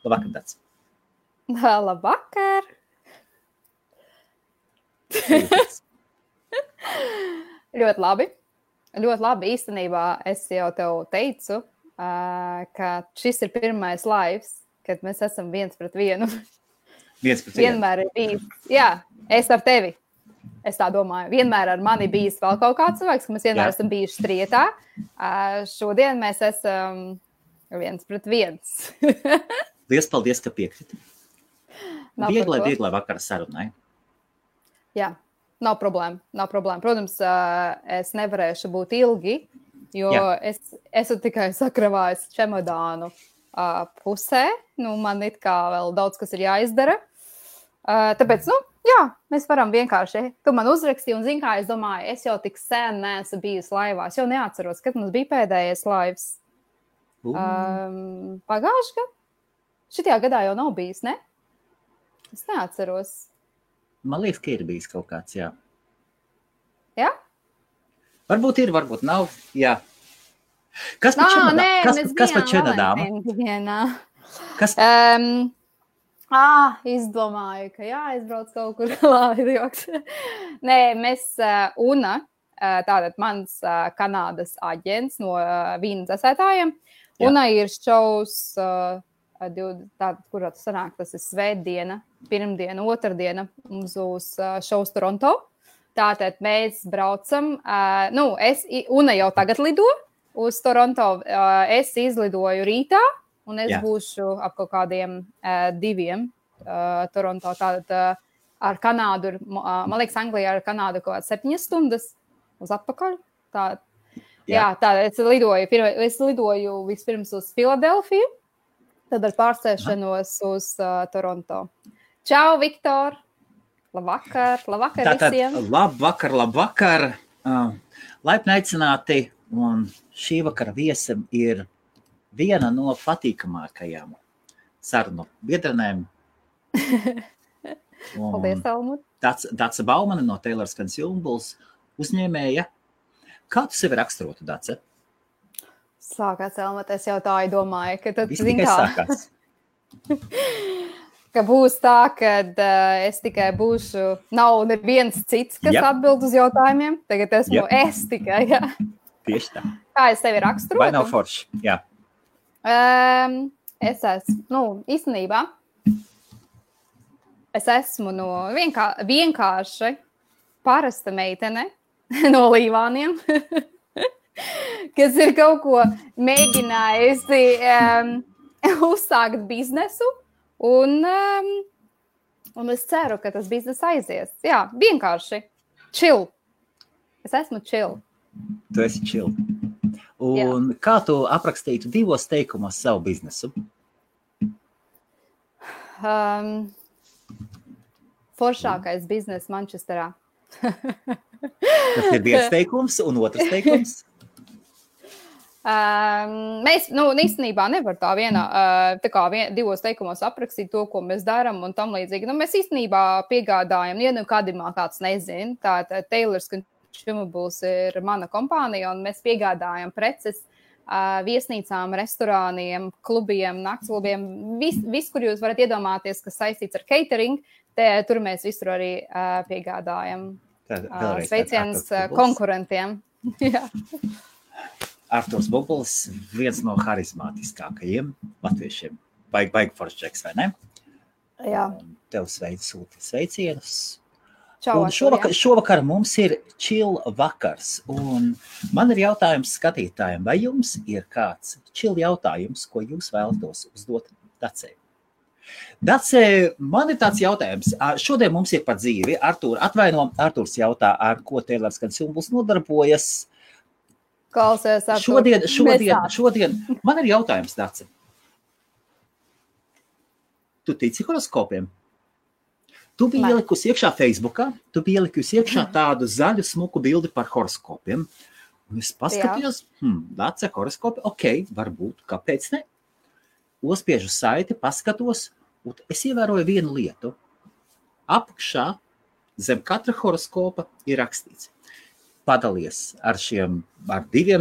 Labvakar, Dace. Labvakar! Ļoti labi. Ļoti labi. Īstenībā es jau tev teicu, ka šis ir pirmais lives, kad mēs esam viens pret vienu. Vienmēr ir bijis. Jā, es ar tevi. Es tā domāju. Vienmēr ar mani bijis vēl kaut kāds cilvēks, ka mēs vienmēr esam bijuši strietā. Šodien mēs esam viens pret viens. Liels paldies, ka piekriti. Vieglai vakara sarunai. Jā, nav problēma. Protams, es nevarēšu būt ilgi, jo es esmu tikai sakravājis čemodānu pusē. Man it kā vēl daudz, kas ir jāizdara. Tāpēc, mēs varam vienkārši. Tu man uzrakstīji un zini, kā es domāju, es jau tik sen neesmu bijusi laivā. Es jau neatceros, kad mums bija pēdējais laivs. Pagājuši gadu? Šitajā gadā jau nav bijis, ne? Es neatceros. Man liekas, ka ir bijis kaut kāds, jā. Jā? Varbūt ir, varbūt nav, jā. Kas pa čemodānu? Kas? Izdomāju, ka jāizbrauc kaut kur laidojoks. Nē, mēs Una, tātad mans Kanādas aģents no vīna dzēsētājiem. Una ir šovs, tātad, kurā tas sanāk, tas ir svētdiena, pirmdiena, otrdiena, mums būs šovs Toronto. Tātad mēs braucam, Una jau tagad lido uz Toronto, es izlidoju rītā. Un es būšu ap kaut kādiem 2 Toronto. Tātad ar Kanādu, man liekas, Anglijā ar Kanādu kaut kāds 7 stundas uz atpakaļ. Tātad es lidoju vispirms uz Filadelfiju, tad ar pārsēšanos uz Toronto. Čau, Viktor! Labvakar visiem! Labvakar! Laipni aicināti, un šī vakara viesam ir viena no patīkamākajām sarunu biedrenēm. Paldies, Helmut. Dace Baumane no Taylor's Consumables uzņēmēja. Kā tu sevi raksturotu, Dace? Sākās, Helmut, es jau tā domāju, ka tad viss tikai sākās. Ka būs tā, kad es tikai būšu, nav neviens cits, kas atbild uz jautājumiem. Tagad esmu es tikai, jā. Tieši tā. Kā es sevi raksturotu? Vai nav forši, jā. Es esmu, īstenībā, es esmu no vienkārši parasta meitene no Līvāniem, kas ir kaut ko mēģinājusi uzsākt biznesu, un es ceru, ka tas biznes aizies. Jā, vienkārši chill. Es esmu chill. Tu esi chill. Un kā tu aprakstītu 2 teikumos savu biznesu? Foršākais biznes Manchesterā. Tas ir 1 teikums un 2 teikums? Mēs, īstenībā nevar tā vienā, 2 teikumos aprakstīt to, ko mēs darām un tam līdzīgi. Mēs īstenībā piegādājam, kādimā kāds nezin, tātad Taylor's Consumables ir mana kompānija, un mēs piegādājam preces viesnīcām, restorāniem, klubiem, naktsklubiem, viss, kur jūs varat iedomāties, kas saistīts ar catering, tur mēs visur arī piegādājam. Sveiciens konkurentiem. Arturs Bublis, viens no harizmātiskākajiem latviešiem. Baigi foršķeks, vai ne? Jā. Tev sūti sveicienus. Čau, un šovakar mums ir chill vakars, un man ir jautājums skatītājiem, vai jums ir kāds chill jautājums, ko jūs vēlatos uzdot Dacei? Dace, man ir tāds jautājums. Šodien mums ir par dzīvi. Arturs jautā, ar ko Taylor's Consumables nodarbojas. Klausies, Artur. Šodien man ir jautājums, Dace. Tu tici horoskopiem? Tu biji ielikusi iekšā Facebookā, tādu zaļu smuku bildi par horoskopiem. Un es paskatījos, Dace, horoskopi, varbūt, kāpēc ne? Uzspiežu saiti, paskatos, un es ievēroju vienu lietu. Apakšā zem katra horoskopa ir rakstīts. Padalies ar 2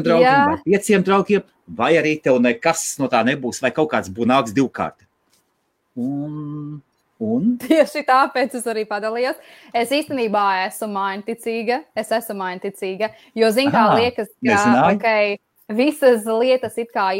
draugiem vai 5 draugiem, vai arī tev nekas no tā nebūs, vai kaut kāds bunāks 2 kārti. Un? Tieši tāpēc es arī padalījos. Es īstenībā esmu mainticīga, jo, zin, kā liekas, ka, visas lietas it kā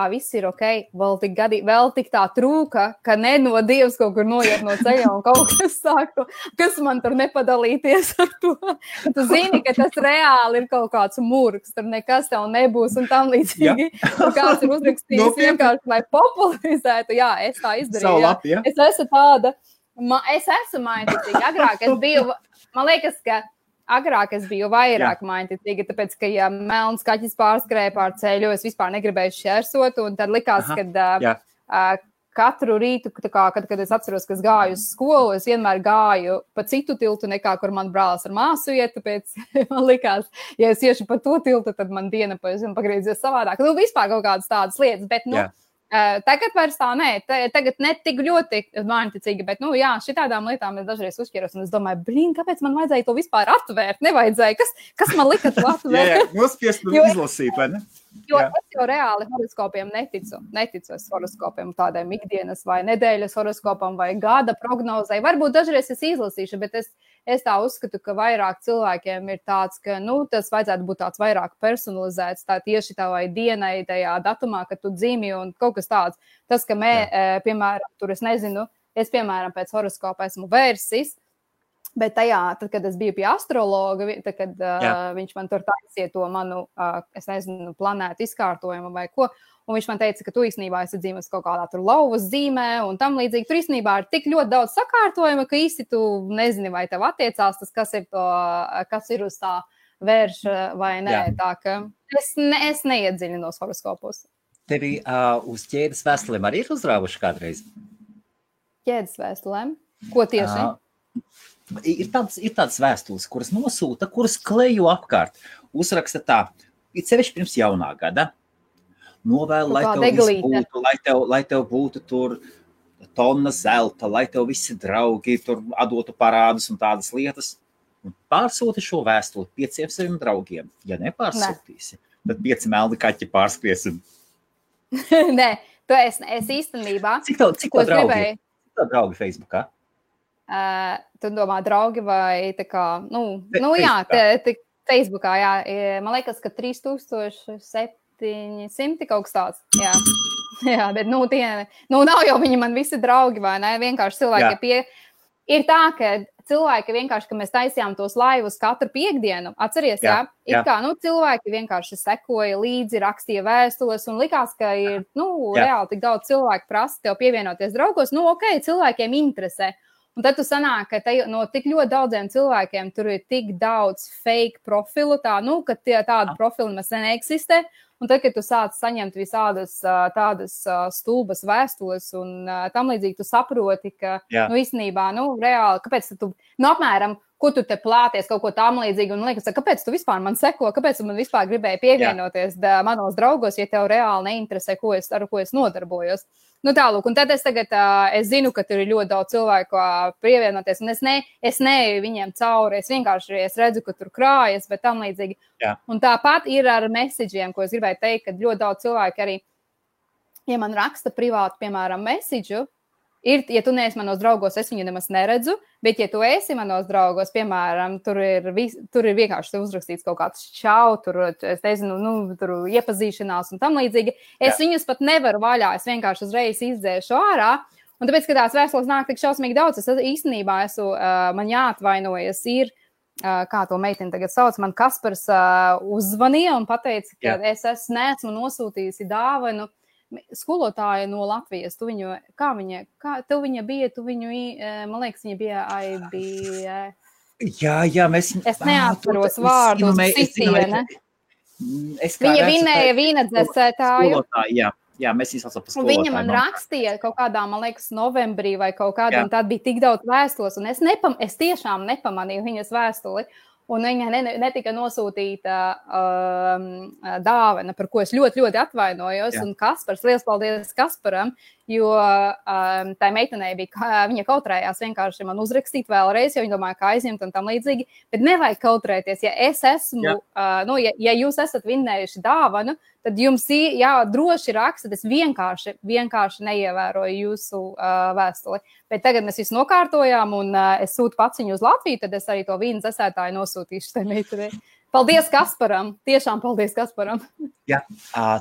viss ir vēl tik tā trūka, ka no Dievs kaut kur noiet no ceļa un kaut kas sāku, kas man tur nepadalīties ar to. Tu zini, ka tas reāli ir kaut kāds murgs, tur nekas tev nebūs un tam līdzīgi. Tur kāds ir uzrakstījis vienkārši, lai popularizētu. Jā, es tā izdarīju. Es esmu tāda, es esmu mainticīga. Agrāk es biju, man liekas, ka agrāk es biju vairāk mainticīga, tāpēc, ka, ja melns kaķis pārskrēja pār ceļu, es vispār negribēju šķērsot, un tad likās, ka katru rītu, kad es atceros, ka es gāju uz skolu, es vienmēr gāju pa citu tiltu, nekā kur man brālis ar māsu iet, tāpēc man likās, ja es iešu pa to tiltu, tad man diena pagriezies savādāk. Nu, vispār kaut kādas tādas lietas, bet, tagad vairs tā tagad ne tik ļoti mainticīgi, bet, šitādām lietām es dažreiz uzķeros, un es domāju, kāpēc man vajadzēja to vispār atvērt? Nevajadzēja, kas man lika to atvērt? Nospiest un izlasīt, vai ne? Jo es jau reāli horoskopiem neticu es horoskopiem tādiem ikdienas vai nedēļas horoskopam vai gada prognozei. Varbūt dažreiz es izlasīšu, bet es tā uzskatu, ka vairāk cilvēkiem ir tāds, ka, tas vajadzētu būt tāds vairāk personalizēts, tā tieši tavai dienai, tajā datumā, kad tu dzimi un kaut kas tāds. Tas, ka piemēram, tur es nezinu, es, piemēram, pēc horoskopa esmu Vērsis, bet tad, kad es biju pie astrologa, tad, kad viņš man tur taisīja to manu, es nezinu, planētu izkārtojumu vai ko, un viņš man teica, ka tu īstenībā esi dzīves kaut kādā tur lauvas zīmē un tam līdzīgi. Tur īstenībā ir tik ļoti daudz sakārtojuma, ka īsti tu nezini, vai tev attiecās tas, kas ir uz tā vērša vai nē. Tā ka es neiedziļinos horoskopos. Tevi uz ķēdes vēstulēm arī ir uzrāvuši kādreiz? Ķēdes vēstulēm? Ko tieši? Ir tādas vēstules, kuras nosūta, kuras klejo apkārt. Uzraksta tā, it sevišķi pirms jaunā gada. Novēl, lai tev būtu tur tonna zelta, lai tev visi draugi tur atdotu parādus un tādas lietas. Un pārsūti šo vēstuli 5 saviem draugiem. Ja nepārsūtīsi, tad 5 melni kaķi pārskries. Nē, es īstenībā... Cik tev draugi Facebookā? Tu domā draugi vai tā kā, Facebookā, man liekas, ka 3700 kaut kas tāds, jā, bet, nav jau viņi man visi draugi, vai ne, vienkārši cilvēki ir tā, ka cilvēki vienkārši, ka mēs taisījām tos laivus katru piekdienu, atceries, ir kā, cilvēki vienkārši sekoja līdzi, rakstīja vēstules un likās, ka ir, reāli tik daudz cilvēku prasa tev pievienoties draugos, cilvēkiem interesē. Un tad tu sanāk, ka no tik ļoti daudziem cilvēkiem tur ir tik daudz fake profilu, ka tādu profilu mēs neeksistē. Un tad, kad tu sāc saņemt visādas tādas stulbas vēstules un tam līdzīgi, tu saproti, ka, īstenībā, reāli, kāpēc tu, apmēram, ko tu te plāties, kaut ko tam līdzīgi, un liekas, kāpēc tu vispār man seko, kāpēc tu man vispār gribēji pievienoties manos draugos, ja tev reāli neinteresē, ar ko es nodarbojos. Tālūk, un tad es zinu, ka tur ir ļoti daudz cilvēku pievienoties, un es neeju viņiem cauri, es vienkārši redzu, ka tur krājas, bet tam līdzīgi. Un tāpat ir ar messageiem, ko es gribēju teikt, ka ļoti daudz cilvēku arī, ja man raksta privāti, piemēram, message'u, ja tu neesi manos draugos, es viņu nemaz neredzu, bet ja tu esi manos draugos, piemēram, tur ir vienkārši uzrakstīts kaut kāds čau, tur, es nezinu, tur iepazīšanās un tam līdzīgi. Es viņus pat nevaru vaļā, es vienkārši uzreiz izdzēšu ārā, un tāpēc, ka tās vēstules nāk tik šausmīgi daudz, es īstenībā man jāatvainojas ir, kā to meiteni tagad sauc, man Kaspars uzzvanīja un pateica, ka es neesmu nosūtījusi dāvanu skolotāja no Latvijas, tev viņa bija, man liekas, viņa bija IBF. Jā, mēs... Es neatceros vārdu, Citiene. Viņa vinēja vīna dzēsētāju. Jā, mēs izlasām par skolotāju. Viņa man rakstīja kaut kādā, man liekas, novembrī vai kaut kādā, un tad bija tik daudz vēstules, un es tiešām nepamanīju viņas vēstuli. Un viņa netika nosūtīta dāvana, par ko es ļoti, ļoti atvainojos. Un Kaspars, liels paldies Kasparam, jo tā meitenei bija, viņa kautrējās vienkārši man uzrakstīt vēlreiz, jo viņa domāja, ka aizņemt un tam līdzīgi, bet nevajag kautrēties. Ja es esmu, ja jūs esat vinnējuši dāvanu, tad jums droši raksta, es vienkārši neievēroju jūsu vēstuli. Bet tagad mēs visu nokārtojām un es sūtu pats viņu uz Latviju, tad es arī to vīnu dzesētāju nosūtīšu tai meitenei. Paldies Kasparam! Tiešām paldies Kasparam! Jā,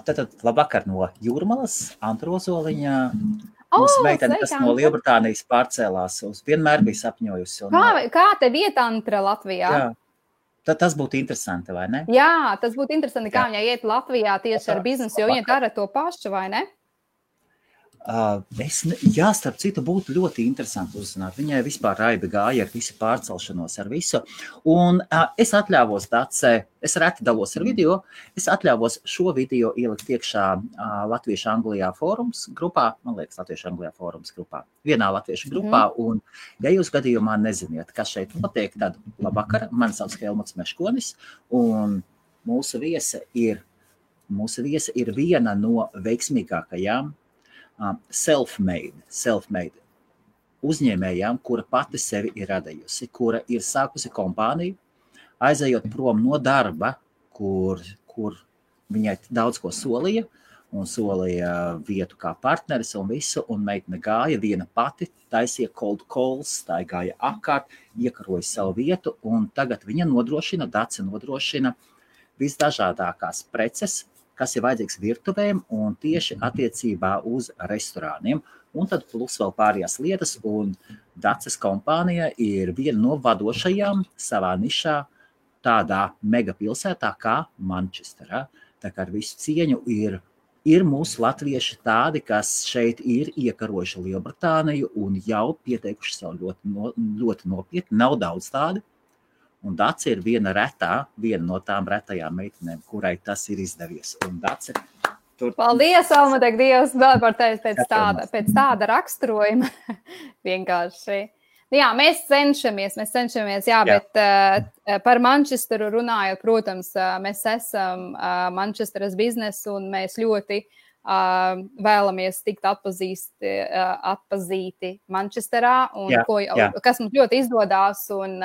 tad labvakar no Jūrmalas, Antrozoliņa. Mūsu meitene, kas no Lielbritānijas pārcēlās, vienmēr bija sapņojusi. Kā te vieta Antra Latvijā? Jā. Tad tas būtu interesanti, vai ne? Jā, tas būtu interesanti, kā viņai iet Latvijā tieši ar biznesu, jo viņa dara to pašu, vai ne? Starp citu, būtu ļoti interesanti uzzināt. Viņai vispār raibi gāja ar visu pārcelšanos, ar visu. Un es atļāvos es reti dalos ar video, es atļāvos šo video ielikt iekšā Latviešu Anglijā fórums grupā, man liekas, Latviešu Anglijā fórums grupā, vienā Latviešu grupā, un ja jūs gadījumā neziniet, kas šeit notiek, tad labvakar, mani sauc Helmuts Meškonis, un mūsu viesa ir viena no veiksmīgākajām self-made uzņēmējām, kura pati sevi ir radījusi, kura ir sākusi kompāniju, aizejot prom no darba, kur viņai daudz ko solīja, un solīja vietu kā partneris un visu, un meitene gāja viena pati, taisīja cold calls, tā gāja apkārt, iekaroja savu vietu, un tagad viņa Dace nodrošina visdažādākās preces, kas ir vajadzīgs virtuvēm un tieši attiecībā uz restorāniem. Un tad plus vēl pārējās lietas, un Daces kompānija ir viena no vadošajām savā nišā tādā megapilsētā kā Manchesterā. Tā kā ar visu cieņu ir mūsu latvieši tādi, kas šeit ir iekarojuši Lielbritāniju un jau pieteikuši sev ļoti nopietni, nav daudz tādi. Un Dace ir viena no tām retajām meitenēm, kurai tas ir izdevies. Un Dace Paldies, Almudek, Dievs, vēl par tevi pēc tāda raksturojuma. Vienkārši. Jā, mēs cenšamies, jā, bet par Manchesteru runājot, protams, mēs esam Manchesteras biznesu un mēs ļoti vēlamies tikt atpazīti Manchesterā, un kas mums ļoti izdodās, un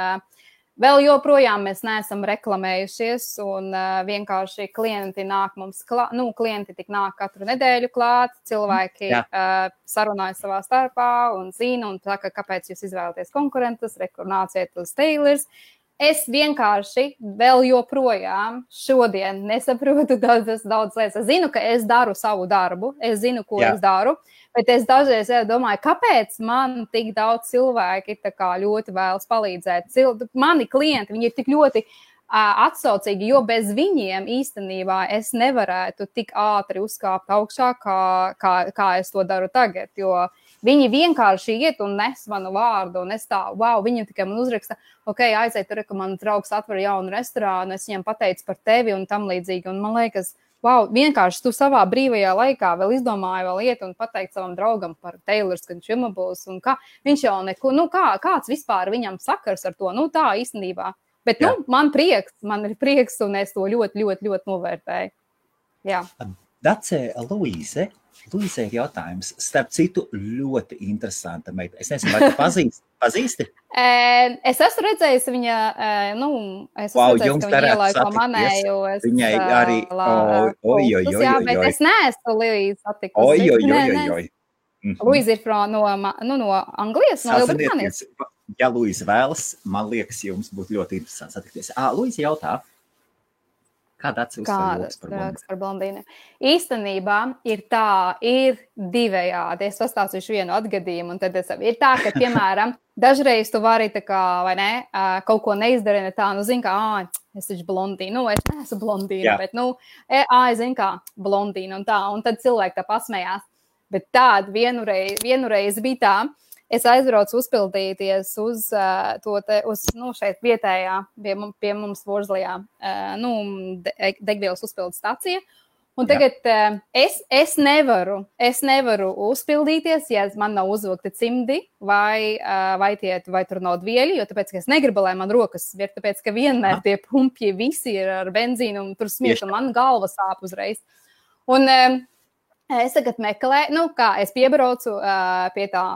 vēl joprojām mēs neesam reklamējušies, un vienkārši klienti nāk mums klienti tik nāk katru nedēļu klāt, cilvēki sarunāja savā starpā un zina, un saka, kāpēc jūs izvēlaties konkurentus, nāciet uz Taylors. Es vienkārši vēl joprojām šodien nesaprotu daudz lietas. Es zinu, ka es daru savu darbu, es zinu, ko es daru, bet es dažreiz domāju, kāpēc man tik daudz cilvēki tā kā ļoti vēlas palīdzēt. Mani klienti, viņi ir tik ļoti atsaucīgi, jo bez viņiem īstenībā es nevarētu tik ātri uzkāpt augšā, kā es to daru tagad, jo viņi vienkārši iet un nes manu vārdu, un es viņam tikai man uzraksta, aiziet tur, ka mans draugs atver jaunu restorānu, es viņam pateicu par tevi un tam līdzīgi, un man liekas, vienkārši tu savā brīvajā laikā vēl izdomāji vēl iet un pateikt savam draugam par Taylors Consumables, un kā, viņš jau neko, kāds vispār viņam sakars ar to, tā īstenībā, bet, man ir prieks, un es to ļoti, ļoti, ļoti novērtēju. Jā. Dace, Luīze ir jautājums. Starp citu, ļoti interesanta meita. Es nezinu, vai tu pazīsti? Es esmu redzējusi viņa, ka viņa ielaika manēju. Viņai arī, bet es neesmu Luīze satikusi. Luīze ir no Anglijas, no Lielbritānijas. Ja Luīze vēlas, man liekas, jums būtu ļoti interesanti satikties. Luīze jautā. Kāda atsevišķa par blondīnu? Īstenībā ir divējādi. Es pastāstīšu vienu atgadījumu, un tad ir tā, ka, piemēram, dažreiz tu vari tā kā, vai ne, kaut ko neizdarīt, zini, kā, es taču blondīnu, es neesmu blondīna, bet, zini, kā blondīna un tā, un tad cilvēki tā pasmējās. Bet tāda vienreiz bija tā, es aizbraucu uzpildīties uz šeit vietējā, pie mums Vorzlijā, degvielas uzpildes stacija. Un tagad es nevaru uzpildīties, ja man nav uzvilkti cimdi vai tur nav dvieļi, jo tāpēc, ka es negribu, lai man rokas ir, tāpēc, ka vienmēr tie pumpji visi ir ar benzīnu un tur smiet, un man galva sāp uzreiz. Un Es tagad meklēju, es piebraucu pie tā,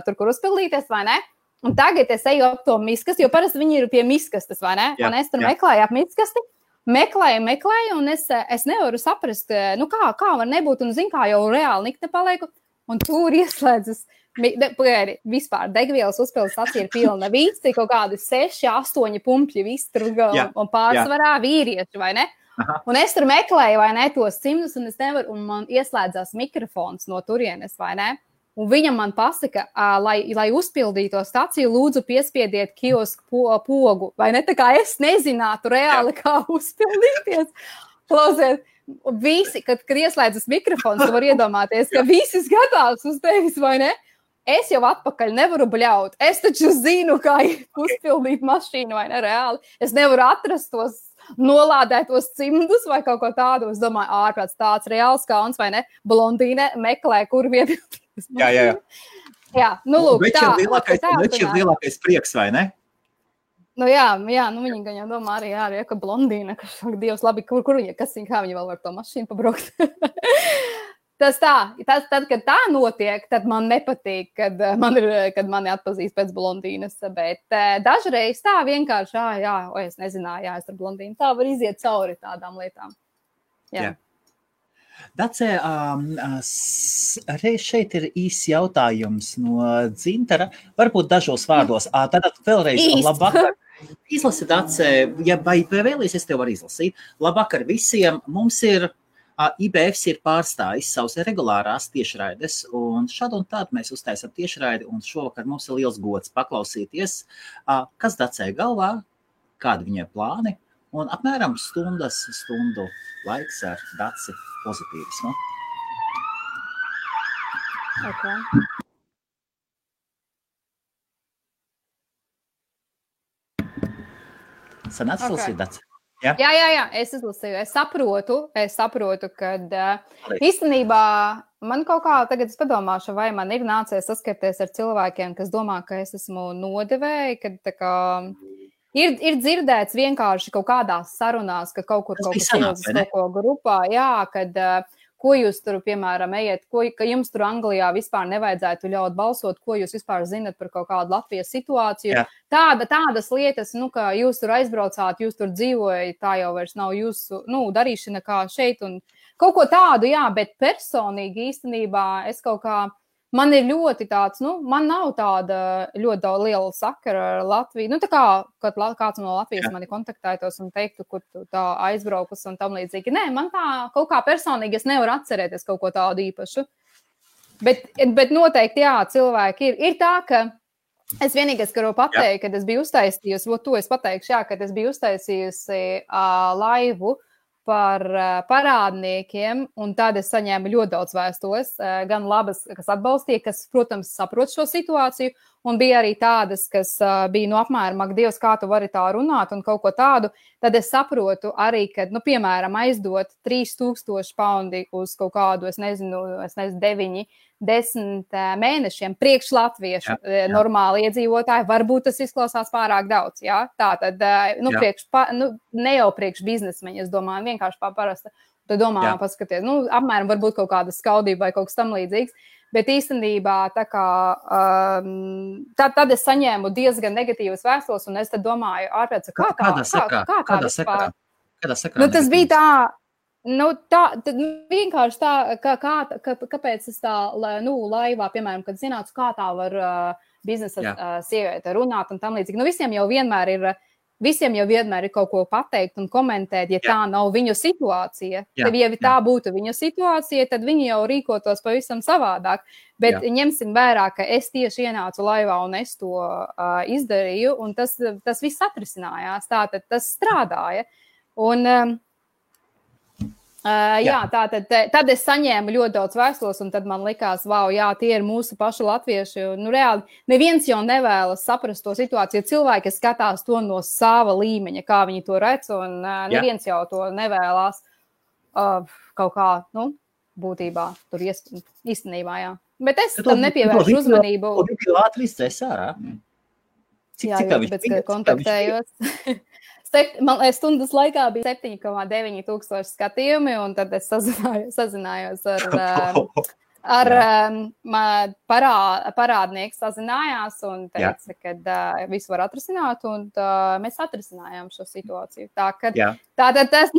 tur, kur uzpildīties, vai ne? Un tagad es eju ap to miskasti, jo parasti viņi ir pie miskastes, vai ne? Un es tur meklēju ap miskasti, meklēju, un es nevaru saprast, kā var nebūt, un zinu, kā jau reāli nikne palieku, un tur ieslēdzas, vispār degvielas uzpildes stacija ir pilna, visi kaut kādi 6, 8 pumpļi, visi tur un pārsvarā vīrieši, vai ne? Aha. Un es tur meklēju, vai ne, tos cimdus, un es nevaru, un man ieslēdzās mikrofons no turienes, vai ne? Un viņam man pasaka, lai uzpildītu to staciju, lūdzu piespiediet kiosku pogu, vai ne? Tā kā es nezinātu reāli, kā uzpildīties. Klausiet, visi, kad ieslēdzas mikrofons, tu var iedomāties, ka visi skatās uz tevis, vai ne? Es jau atpakaļ nevaru bļaut. Es taču zinu, kā uzpildīt mašīnu, vai ne, reāli. Es nevaru atrast tos nolādētos cimdus vai kaut ko tādu. Es domāju, ārprāts tāds reāls kauns, vai ne? Blondīne meklē, kur vietu. Jā. Lūk, Več ir lielākais prieks, vai ne? Viņi gan jau domā arī, ka blondīna, ka Dievs labi, kur viņa, kā viņa vēl var to mašīnu pabraukt. Tad, kad tā notiek, tad man nepatīk, kad mani atpazīst pēc blondīnas, bet dažreiz tā vienkārši, es nezināju, es ar blondīnu, tā var iziet cauri tādām lietām. Jā. Dace, reiz šeit ir īsts jautājums no Dzintara, varbūt dažos vārdos. Tātad vēlreiz labvakar. Izlasi, Dace, vai vēlies, es tev varu izlasīt. Labvakar visiem, mums ir IBFs ir pārstājis savus regulārās tiešraides, un šādu un tādu mēs uztaisam tiešraidi, un šovakar mums ir liels gods paklausīties, kas Dacei galvā, kādi viņai plāni, un apmēram stundu laiks ar Daci pozitīvismu. Okay. Sanāc izlasīt, Daci? Jā, es izlasīju. Es saprotu, kad īstenībā man kaut kā tagad es padomāšu, vai man ir nācies saskarties ar cilvēkiem, kas domā, ka es esmu nodevēji, kad tā kā ir dzirdēts vienkārši kaut kādās sarunās, ka kaut kur kaut kas ielzas kaut ko grupā, kad ko jūs tur, piemēram, ejat, ka jums tur Anglijā vispār nevajadzētu ļaut balsot, ko jūs vispār zinat par kaut kādu Latvijas situāciju. Jā. Tādas lietas, ka jūs tur aizbraucāt, jūs tur dzīvojat, tā jau vairs nav jūsu, darīšana kā šeit un kaut ko tādu, bet personīgi īstenībā es kaut kā, man ir ļoti tāds, man nav tāda ļoti daudz liela sakara ar Latviju. Tā kā, kad kāds no Latvijas mani kontaktētos un teiktu, kur tu tā aizbraukus un tam līdzīgi. Nē, man tā kaut kā personīgi es nevaru atcerēties kaut ko tādu īpašu. Bet noteikti, cilvēki ir tā, ka es vienīgais, ka varu pateikt, kad es biju uztaisījusi, to es pateikšu, kad es biju uztaisījusi laivu par parādniekiem, un tad es saņēmu ļoti daudz vēstules, gan labas, kas atbalstīja, kas, protams, saprot šo situāciju, un bija arī tādas, kas bija apmēram, ak, Dievs, kā tu vari tā runāt un kaut ko tādu, tad es saprotu arī, ka, piemēram, aizdot 3000 paundi uz kaut kādu, es nezinu, 9-10 mēnešiem priekš latviešu normāli iedzīvotāji, varbūt tas izklausās pārāk daudz, tātad, ne jau priekš biznesmeņi, es domāju, vienkārši parasta, tu domā, paskaties, apmēram varbūt kaut kāda skaudība vai kaut kas tam līdzīgs, bet īstenībā tā kā, tad es saņēmu diezgan negatīvas vēstules, un es tad domāju, ārpēc, Kādā sakarā? Tas bija tā, tad vienkārši tā, kāpēc es tā, laivā, piemēram, kad zinātu, kā tā var biznesa sieviete runāt un tam līdzīgi. Visiem jau vienmēr ir kaut ko pateikt un komentēt, ja tā nav viņu situācija. Tad, ja tā būtu viņu situācija, tad viņi jau rīkotos pavisam savādāk. Bet ņemsim vērā, ka es tieši ienācu laivā un es to izdarīju, un tas viss atrisinājās. Tātad tas strādāja. Un tad es saņēmu ļoti daudz vēstules, un tad man likās, tie ir mūsu paši latvieši. Reāli, neviens jau nevēlas saprast to situāciju. Cilvēki skatās to no sava līmeņa, kā viņi to redz, un neviens jau to nevēlas kaut kā, būtībā, tur īstenībā, Bet es tam nepievēršu uzmanību. Viņš ātri izcēs ārā. Cik kontaktējos. stundas laikā bija 7,9 tūkstoši skatījumi, un tad es sazinājos ar parādnieku sazinājās un teica, ka visu var atrisināt, un mēs atrisinājām šo situāciju. Tātad tas,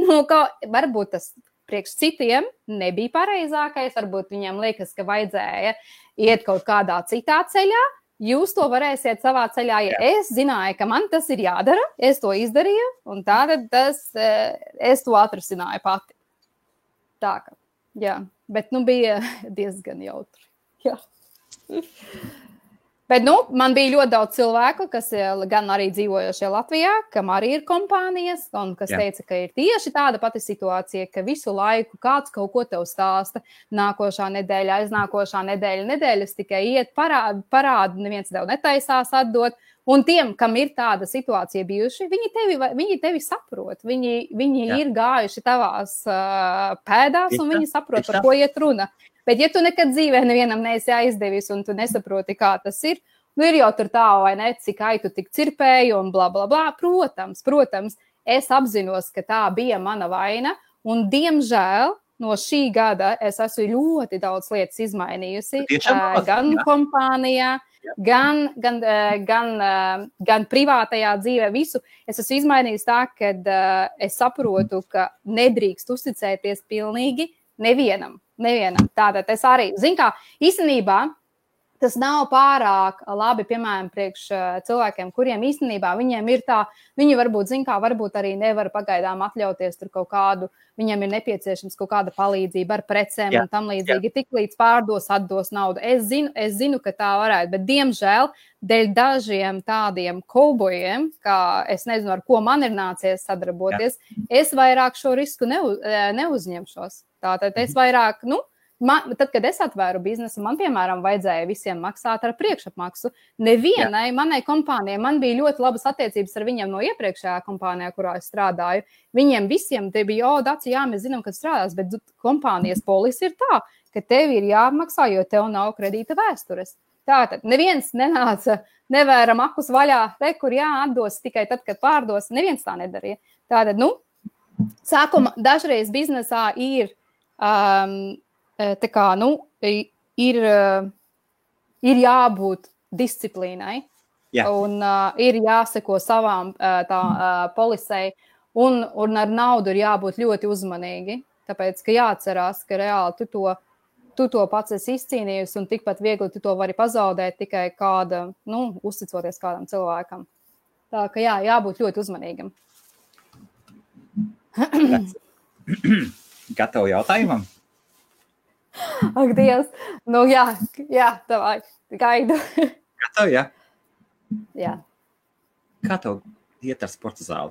varbūt tas priekš citiem nebija pareizākais, varbūt viņiem liekas, ka vajadzēja iet kaut kādā citā ceļā. Jūs to varēsiet savā ceļā, es zināju, ka man tas ir jādara, es to izdarīju, un tātad es to atrisināju pati. Tā kā, bet, bija diezgan jautri, Bet, man bija ļoti daudz cilvēku, kas gan arī dzīvojošie Latvijā, kam arī ir kompānijas, un kas teica, ka ir tieši tāda pati situācija, ka visu laiku kāds kaut ko tev stāsta, nākošā nedēļa, aiznākošā nedēļas tikai iet parādu, neviens tev netaisās atdot, un tiem, kam ir tāda situācija bijuši, viņi tevi saprot, viņi ir gājuši tavās pēdās, un viņi saprot, par ko iet runa. Bet, ja tu nekad dzīvē nevienam neesi aizdevis un tu nesaproti, kā tas ir, ir jau tur tā, vai ne, cik aitu tik cirpēju un bla, bla, bla. Protams, es apzinos, ka tā bija mana vaina, un diemžēl no šī gada es esmu ļoti daudz lietas izmainījusi, gan kompānijā, gan privātajā dzīvē, visu. Es esmu izmainījusi tā, ka es saprotu, ka nedrīkst uzticēties pilnīgi nevienam. Tātad es arī, īstenībā tas nav pārāk labi, piemēram, priekš cilvēkiem, kuriem īstenībā viņiem ir tā, viņi varbūt arī nevar pagaidām atļauties tur kaut kādu, viņiem ir nepieciešams kaut kāda palīdzība ar precēm un tam līdzīgi, tik līdz atdos naudu. Es zinu, ka tā varētu, bet diemžēl dēļ dažiem tādiem kaubojiem, kā es nezinu, ar ko man ir nācies sadarboties, es vairāk šo risku neuzņemšos. Tātad es vairāk, tad, kad es atvēru biznesu, man, piemēram, vajadzēja visiem maksāt ar priekšapmaksu. Nevienai manai kompānijai, man bija ļoti labas attiecības ar viņiem no iepriekšējā kompānijā, kurā es strādāju. Viņiem visiem te bija, Daci, mēs zinām, kad strādās, bet kompānijas polisi ir tā, ka tev ir jāmaksā, jo tev nav kredīta vēstures. Tātad neviens nenāca, nevēra makus vaļā, kur atdos tikai tad, kad pārdos. Neviens tā nedarīja. Tātad, sākuma dažreiz biznesā ir ir jābūt disciplīnai un ir jāseko savām polisei un ar naudu ir jābūt ļoti uzmanīgi, tāpēc, ka jāatcerās, ka reāli tu to pats esi izcīnījusi un tikpat viegli tu to vari pazaudēt tikai uzticoties kādam cilvēkam. Tā ka jābūt ļoti uzmanīgam. Gatavu jautājumam? Ak, Dievs. Tavai, gaidu. Gatavu, Jā. Kā tev iet ar sporta zāli?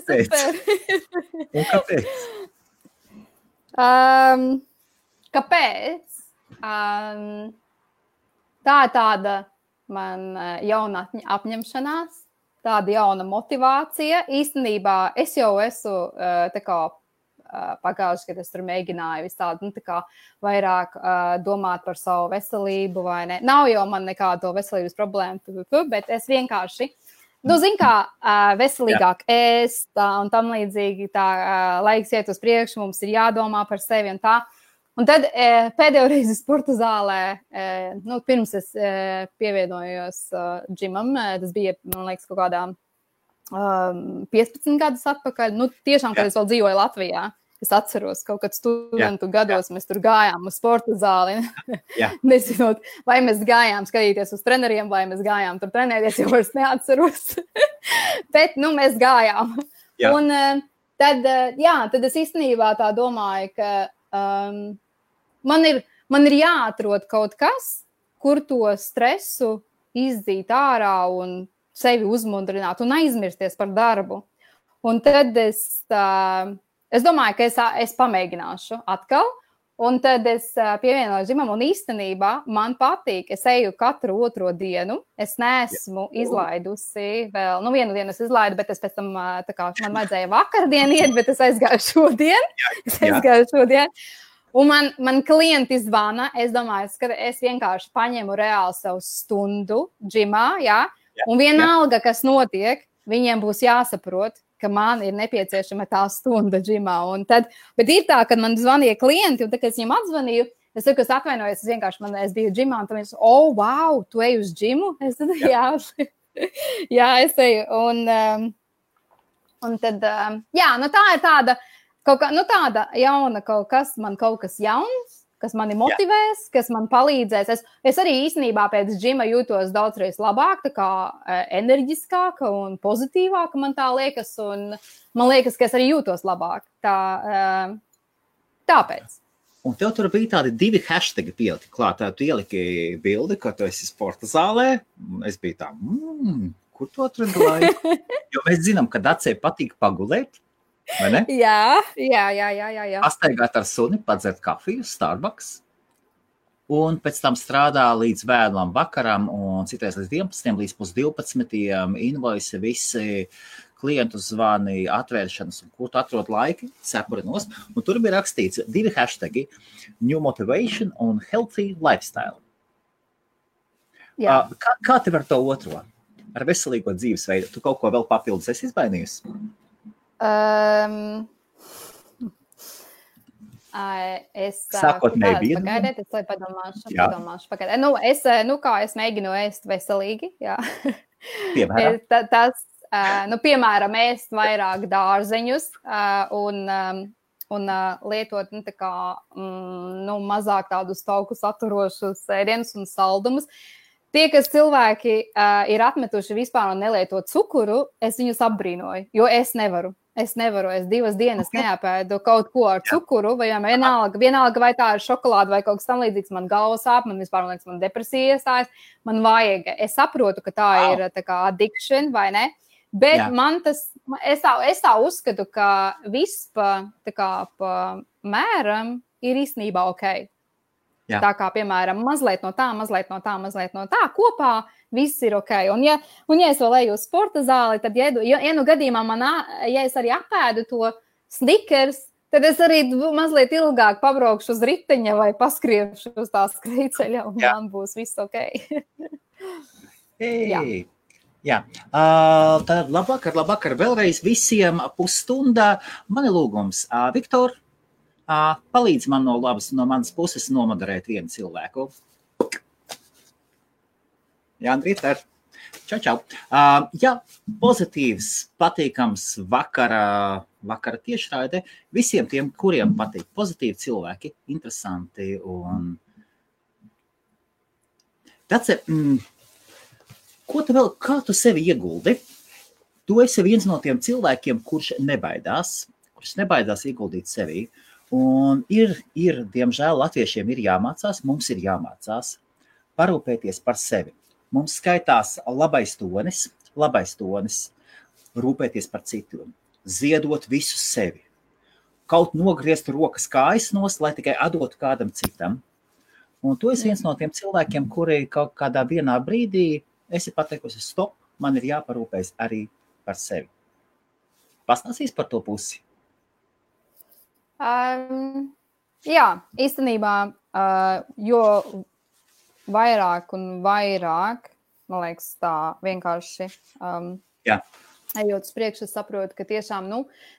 Super! Un kāpēc? Kāpēc? Tā ir tāda man jauna apņemšanās, tāda jauna motivācija. Īstenībā es jau esmu pagājuši, kad es tur mēģināju vistādi, vairāk domāt par savu veselību vai ne. Nav jau man nekādu veselības problēmu, bet es vienkārši, veselīgāk ēst un tam līdzīgi laiks iet uz priekšu, mums ir jādomā par sevi un tā. Un tad pēdējo reizi sporta zālē, pirms es pievienojos džimam, tas bija, man liekas, kaut kādā 15 gadus atpakaļ, tiešām, kad es vēl dzīvoju Latvijā, es atceros, kaut kad studentu gados mēs tur gājām uz sporta zāli, nezinot, vai mēs gājām skatīties uz treneriem, vai mēs gājām tur trenēties, jau vairs neatceros, bet, mēs gājām. Un tad es īstenībā tā domāju, ka man ir jāatrod kaut kas, kur to stresu izdzīt ārā un sevi uzmundrināt un aizmirsties par darbu. Un tad es domāju, ka es pamēģināšu atkal, un tad es pievienoju žimam, un īstenībā man patīk, es eju katru otro dienu, es neesmu izlaidusi vēl, vienu dienu es izlaidu, bet es pēc tam, man vajadzēja vakardien iet, bet es aizgāju šodien. Un man klienti zvana, es domāju, ka es vienkārši paņemu reāli savu stundu džimā, un vienalga, kas notiek, viņiem būs jāsaprot, ka man ir nepieciešama tā stunda džimā. Bet ir tā, kad man zvanīja klienti, un tad, kad es viņiem atzvanīju, es saku, es atvainojos, es biju džimā, un tad viņi saka, wow, tu ej uz džimu? Es tad, jā, es eju. Un tad, tā ir tāda, tāda jauna kaut kas jauns, kas mani motivēs, kas man palīdzēs. Es arī īstenībā pēc džima jūtos daudzreiz labāk, tā kā enerģiskāka un pozitīvāka man tā liekas, un man liekas, ka es arī jūtos labāk. Tāpēc. Un tev tur bija tādi 2 hashtagi pieliki klāt. Tu ieliki bildi, ka tu esi sporta zālē. Es biju tā, kur tu atradi laiku? Jo mēs zinām, ka Dacei patīk pagulēt, vai ne? Jā. Pastaigāt ar suni, padzert kafiju, Starbucks. Un pēc tam strādā līdz vēlam vakaram un citreiz līdz 11, līdz 12, invoisi visi klientu zvani, atvēršanas, un kur tu atrod laiki, sepurinos. Un tur bija rakstīts 2 hashtagi, New Motivation un Healthy Lifestyle. Kā tev ar to otro? Ar veselīgo dzīvesveidu? Tu kaut ko vēl papildus esi izmainījusi? Sākotnēji bija. Pagaidiet, es padomāšu. Pagaidiet. Es mēģinu ēst veselīgi, jā. Piemēram? Piemēram, ēst vairāk dārzeņus un lietot mazāk tādus tauku saturošus ēdienus un saldumus. Tie, kas cilvēki ir atmetuši vispār un nelieto cukuru, es viņus apbrīnoju, jo es nevaru. Es 2 dienas neapēdu kaut ko ar cukuru, vai vienalga vai tā ir šokolāde vai kaut kas tam līdzīgs, man galva sāp, man vispār liekas, man depresija iestājas, man vajag. Es saprotu, ka tā ir tā kā addiction, vai ne? Bet man es tā uzskatu, ka viss pa mēram ir īstenībā ok. Jā. Tā kā, piemēram, mazliet no tā, kopā viss ir ok. Un ja es vēl eju uz sporta zāli, tad, ja nu gadījumā ja es arī apēdu to Snickers, tad es arī mazliet ilgāk pabraukšu uz riteņa vai paskriešu uz tā skrejceļa, un man būs viss ok. Jā. Tad labvakar vēlreiz visiem pusstundā. Man ir lūgums, Viktor, palīdz man no manas puses nomoderēt vienu cilvēku. Jā, Andrīter. Čau. Jā, pozitīvs, patīkams vakara tiešraide visiem tiem, kuriem patīk pozitīvi cilvēki, interesanti un... Dace, kā tu sevi ieguldi? Tu esi viens no tiem cilvēkiem, kurš nebaidās ieguldīt sevī. Un ir, diemžēl, latviešiem ir jāmācās, mums ir jāmācās parūpēties par sevi. Mums skaitās labais tonis, rūpēties par citiem, ziedot visu sevi. Kaut nogriezt rokas kājas nost, lai tikai atdotu kādam citam. Un tu esi viens no tiem cilvēkiem, kuri kaut kādā vienā brīdī esi pateikusi stop, man ir jāparūpējas arī par sevi. Pastāstīs par to pusi? Jā, īstenībā, jo vairāk un vairāk, man liekas, tā vienkārši ejot uz priekšu, es saprotu, ka tiešām,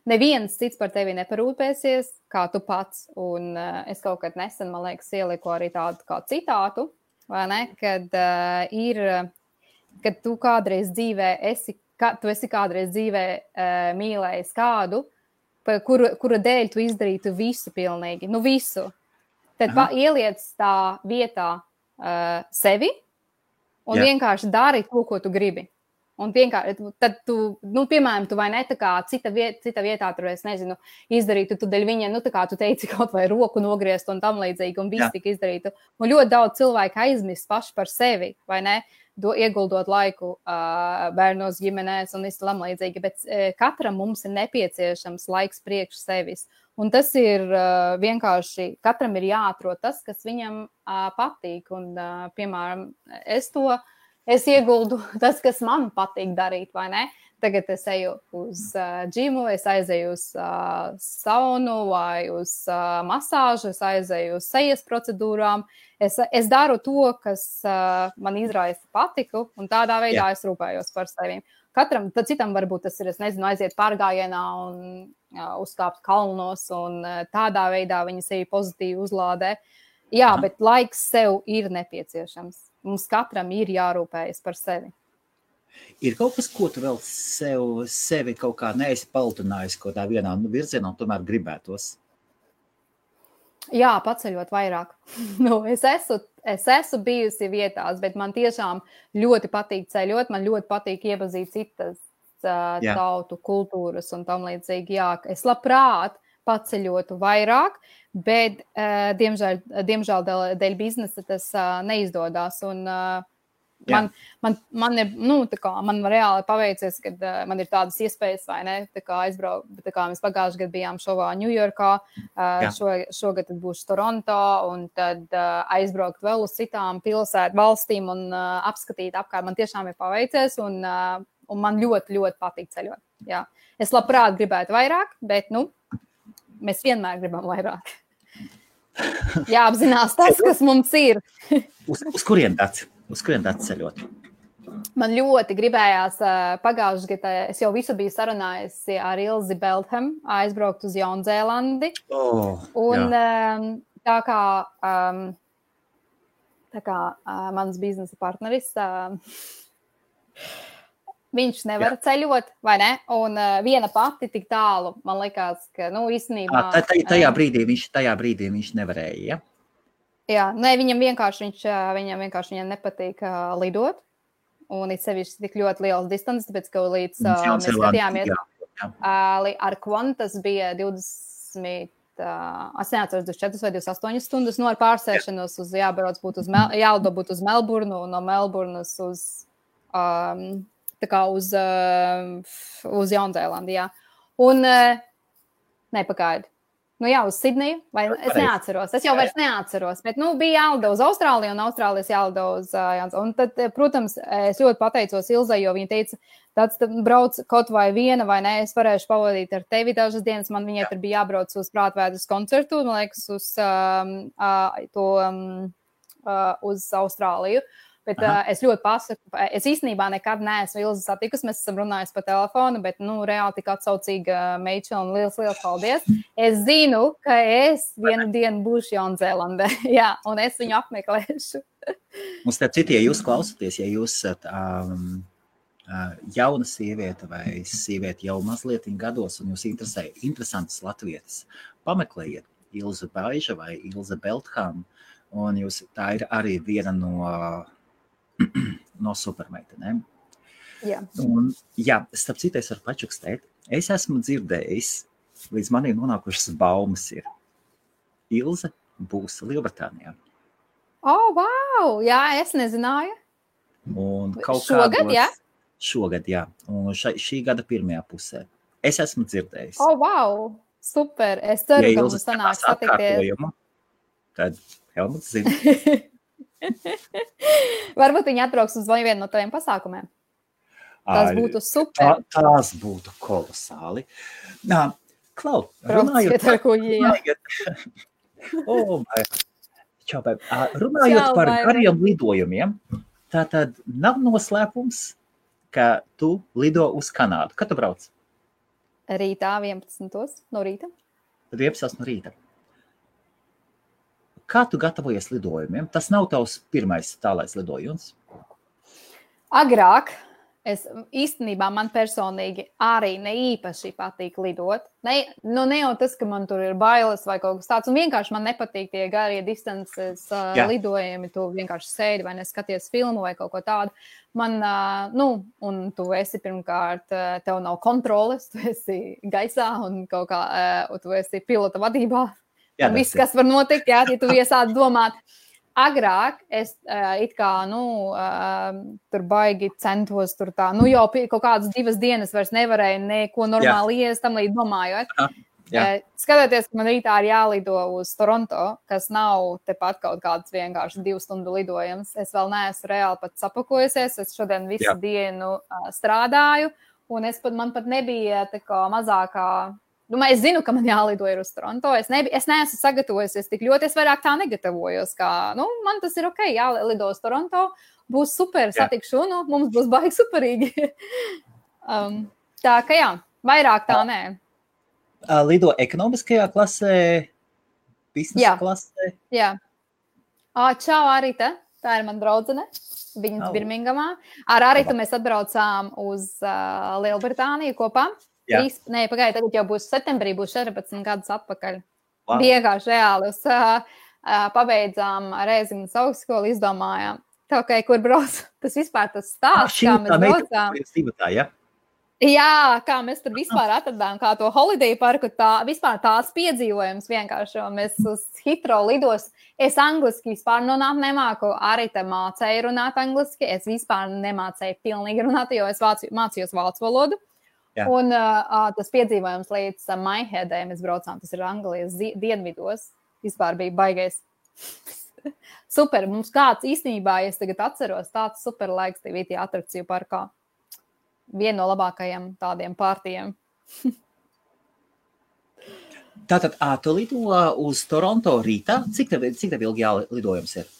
neviens cits par tevi neparūpēsies, kā tu pats. Un es kaut kad nesen, man liekas, ieliku arī tādu kā citātu, vai ne, kad tu kādreiz dzīvē tu esi kādreiz dzīvē mīlējis kādu, kura dēļ tu izdarītu visu pilnīgi, visu. Tad ieliec tā vietā sevi un vienkārši dari to, ko tu gribi. Un vienkārši, tad tu, piemēram, tu vai ne tā kā cita vietā, tur es nezinu, izdarītu tu dēļ viņa, tā kā tu teici kaut vai roku nogriezt un tam līdzīgi, un viss tika izdarītu. Un ļoti daudz cilvēku aizmirst paši par sevi, vai ne? Ieguldot laiku bērnos, ģimenēs un visu tam līdzīgi, bet katram mums ir nepieciešams laiks priekš sevis. Un tas ir vienkārši, katram ir jāatrod tas, kas viņam patīk. Un, piemēram, es ieguldu tas, kas man patīk darīt, vai ne? Tagad es eju uz džimu, es aizēju uz saunu vai uz masāžu, es aizēju uz sejas procedūrām. Es daru to, kas man izraisa patiku, un tādā veidā es rūpējos par sevi. katram, tad citam varbūt tas ir, es nezinu, aiziet pārgājienā un uzkāpt kalnos un tādā veidā viņi sevi pozitīvi uzlādē. Jā, bet laiks sev ir nepieciešams. Mums katram ir jārūpējas par sevi. Ir kaut kas, ko tu vēl sevi kaut kā neesi paltinājis kaut tā vienā virzienā un tomēr gribētos? Jā, paceļot vairāk. Es esmu bijusi vietās, bet man tiešām ļoti patīk ceļot, man ļoti patīk iepazīt citas tautu kultūras un tam līdzīgi. Jā, es labprāt paceļotu vairāk, bet diemžēl dēļ biznesa tas neizdodas. Un man ir, man reāli paveicies, kad man ir tādas iespējas, vai ne, aizbraukt, mēs pagājuši gadu bijām šovā Ņujorkā, šogad būšu Toronto, un tad aizbraukt vēl uz citām valstīm un apskatīt apkārt. Man tiešām ir paveicies, un man ļoti, ļoti patīk ceļot. Jā. Es labprāt gribētu vairāk, bet, mēs vienmēr gribam vairāk. Jāapzinās tas, kas mums ir. Uz kurien tāds? Uz kurien tāds ceļot? Man ļoti gribējās pagājušajā gadā, es jau visu biju sarunājusi ar Ilzi Beltham, aizbraukt uz Jaunzēlandi. Un tā kā mans biznesa partneris, viņš nevar ceļot, vai ne? Un viena pati tik tālu, man likās, ka, īstenībā... Tajā brīdī viņš nevarēja, ja? Jā, viņam vienkārši nepatīk lidot, un it sevišķi tik ļoti liels distance, tāpēc, ka līdz mēs skatījāmies ar Qantas bija 20, es neatceros 24 vai 28 stundas, ar pārsēšanos jālido būt uz Melburnu, un no Melburnas uz Jaunzēlandi, jā. Un, nepagaidi. Uz Sidneju, vai es neatceros. Es jau vairs neatceros, bet, bija jālido uz Austrāliju un Austrālijas jālido uz Jaunzēlandi. Un tad, protams, es ļoti pateicos Ilzai, jo viņa teica, tāds brauc kaut vai viena, vai ne, es varēšu pavadīt ar tevi dažas dienas. Man viņai tur bija jābrauc uz Prātvēdras koncertu, man liekas, uz Austrāliju. Bet es ļoti pasaku, es īstenībā nekad neesmu Ilzi satikusi, mēs esam runājuši pa telefonu, bet, reāli tik atsaucīga meitša un liels paldies. Es zinu, ka es vienu dienu būšu Jaunzēlandē, jā, un es viņu apmeklēšu. Un starp citu, ja jūs klausaties, ja jūs esat jauna sieviete vai sieviete jau mazliet gados un jūs interesē interesantas latvietas, pameklējiet Ilze Baiža vai Ilze Beltham, un tā ir arī viena no supermeitenēm. Jā. Un, starp citu, es varu pačukstēt. Es esmu dzirdējis, līdz manī nonākušas baumas ir. Ilze būs Lielbritānijā. Wow! Jā, es nezināju. Un šogad, jā? Šogad, jā. Un šī gada pirmajā pusē. Es esmu dzirdējis. Wow! Super! Es ceru, ka mums sanāks satikties. Tad Helmuts zina. Varbūt viņi atbrauks uz vienu no taviem pasākumiem. Tas būtu super. Tās būtu kolosāli. Klau, runājot par gariem lidojumiem, tātad nav noslēpums, ka tu lido uz Kanādu. Kad tu brauc? Rītā 11. no rīta. 11. no rīta. Kā tu gatavojies lidojumiem? Tas nav tavs pirmais tālais lidojums? Agrāk, īstenībā man personīgi arī ne īpaši patīk lidot. Ne jau tas, ka man tur ir bailes vai kaut kas tāds, un vienkārši man nepatīk tie garie distances lidojumi, tu vienkārši sēdi vai neskaties filmu vai kaut ko tādu. Man, un tu esi pirmkārt, tev nav kontroles, tu esi gaisā un kaut kā, tu esi pilota vadībā. Un viss, kas var notikt, ja tu iesādi domāt. Agrāk es tur baigi centos tur tā, jau kaut kādas 2 dienas vairs nevarēju neko normāli iest, tam līdz domājot. Skatoties, ka man rītā ir jālido uz Toronto, kas nav tepat kaut kāds vienkārši 2 stundu lidojums. Es vēl neesmu reāli pat sapakojusies, es šodien visu dienu strādāju, un man pat nebija tā kā mazākā... Es zinu, ka man jālido ir uz Toronto. Es neesmu sagatavojusies tik ļoti, es vairāk tā negatavojos, kā, man tas ir ok, jālido uz Toronto, būs super, satikšu, mums būs baigi superīgi. Tā ka jā, vairāk tā nē. Lido ekonomiskajā klasē, biznesa klasē? Jā. Čau, Arita. Tā ir man draudzene. Viņas Birmingamā. Ar Aritu mēs atbraucām uz Lielbritāniju kopā. Pagāja, tagad jau būs septembrī, būs 14 gadus atpakaļ. Wow. Vienkārši reāli. Pabeidzām Rēzinas augstskolu, izdomājām. Tā, kur brauc, tas vispār tas stāsts, kā mēs braucām. Jā, kā mēs tur vispār atradām, kā to holiday parku, vispār tās piedzīvojums vienkārši. Mēs uz Heathrow lidos, es angliski vispār nemāku, arī te mācēju runāt angliski, es vispār nemācēju pilnīgi runāt, jo es mācījos vācu valodu. Jā. Un tas piedzīvojums līdz Mineheadai mēs braucām, tas ir Anglijas dienvidos, vispār bija baigais. Super, mums kāds īstenībā, ja es tagad atceros, tāds super laiks tev ir atrakciju parkā. Viena no labākajiem tādiem pārtiem. Tātad, tu lido uz Toronto rītā? Cik tev ilgi lidojums ir?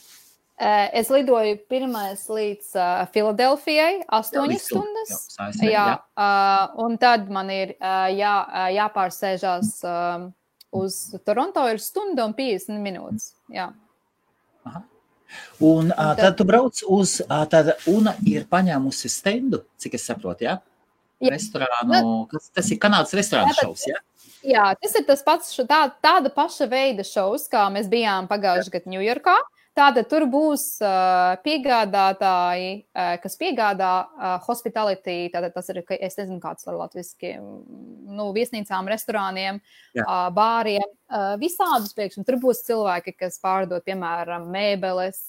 Es lidoju pirmais līdz Filadelfijai, 8 stundas. Jā. Un tad man ir jāpārsēžās uz Toronto ir stunda un 50 minūtes. Jā. Aha. Un tad tu brauc uz, tad Una ir paņēmusi stendu, cik es saprotu, jā? Restorānu, tas ir Kanādas restorānu šovs, jā? Jā, tas ir tas pats, tāda paša veida šovs, kā mēs bijām pagājuši gadu Ņujorkā. Tātad tur būs piegādātāji, kas piegādā hospitality, tātad tas ir, es nezinu, kāds var latviski, viesnīcām, restorāniem, bāriem, visādus priekšam. Tur būs cilvēki, kas pārdod, piemēram, mēbeles,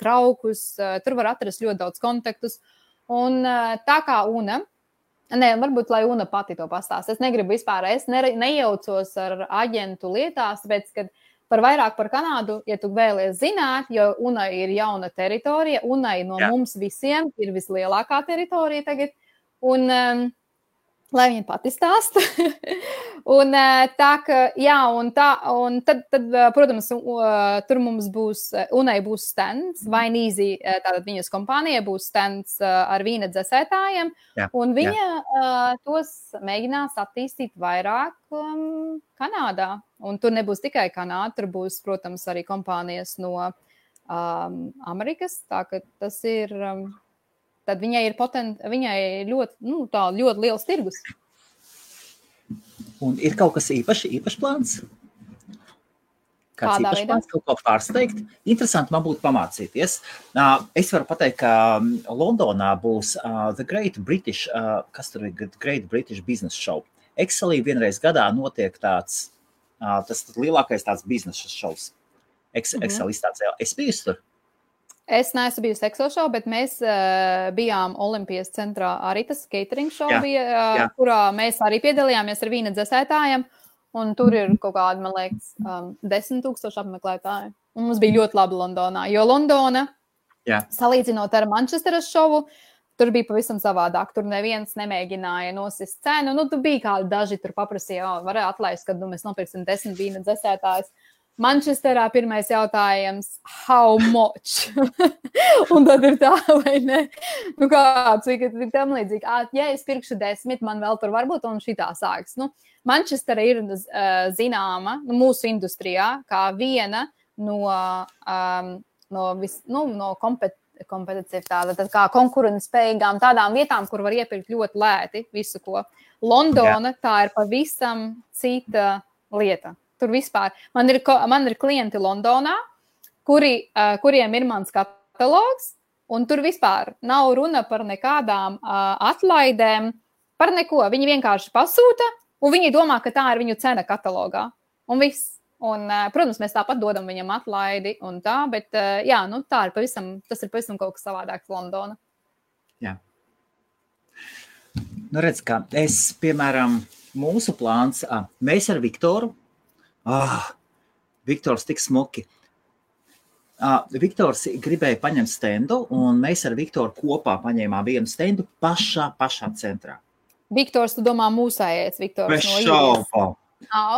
traukus, tur var atrast ļoti daudz kontaktus. Un tā kā Una, varbūt, lai Una pati to pastāst. Es negribu vispār, es nejaucos ar aģentu lietās, tāpēc, kad par vairāk par Kanādu, ja tu vēlies zināt, jo Una ir jauna teritorija, Unai no mums visiem ir vislielākā teritorija tagad, un lai viņa pati stāsta. Un tā, ka, jā, un tad, protams, tur mums būs, Unai būs stands, Vainīzi, tātad viņas kompānija būs stands ar vīna dzesētājiem, un viņa tos mēģinās attīstīt vairāk Kanādā. Un tur nebūs tikai Kanāda, tur būs, protams, arī kompānijas no Amerikas, tā ka tas ir... Tad viņai ir ļoti liels tirgus. Un ir kaut kas īpašs plāns? Kāds īpašs plāns, kaut ko pārsteigt? Interesanti man būtu pamācīties. Es varu pateikt, ka Londonā būs The Great British, Great British Business Show. Excelī vienreiz gadā notiek tāds, tas lielākais tāds biznesa šovs. Excel izstācējā. Es biju tur? Es neesmu bijusi Excel show, bet mēs bijām Olimpijas centrā arī tas catering show bija, kurā mēs arī piedalījāmies ar vīna dzesētājiem, un tur ir kaut kādi, man liekas, 10,000 apmeklētāji. Un mums bija ļoti labi Londonā, jo Londona, salīdzinot ar Manchesteras šovu, tur bija pavisam savādāk. Tur neviens nemēģināja nosist cenu. Tur bija kādi daži, tur paprasīja, varēja atlaist, kad mēs nopirksim 10 vīna dzesētājus. Manchesterā pirmais jautājums, how much? Un tad ir tā, vai ne? Kāds, vai ir tam līdzīgi, ja es pirkšu 10, man vēl tur varbūt, un šitā sāks. Manchestera ir zināma mūsu industrijā kā viena no kompetitīvām, tad kā konkurentspējīgām tādām vietām, kur var iepirkt ļoti lēti visu, ko. Londona, tā ir pavisam cita lieta. Tur vispār. Man ir klienti Londonā, kuriem ir mans katalogs, un tur vispār nav runa par nekādām atlaidēm, par neko. Viņi vienkārši pasūta, un viņi domā, ka tā ir viņu cena katalogā. Un viss. Un, protams, mēs tāpat dodam viņam atlaidi un tā, bet jā, tā ir tas ir pavisam kaut kas savādāks Londona. Jā. Redz, kā es, piemēram, mūsu plāns, mēs ar Viktoru, Viktors tik smuki. Viktors gribēja paņemt stendu, un mēs ar Viktoru kopā paņēmām vienu stendu pašā centrā. Viktors, tu domā mūsējais Viktors no Īrijas?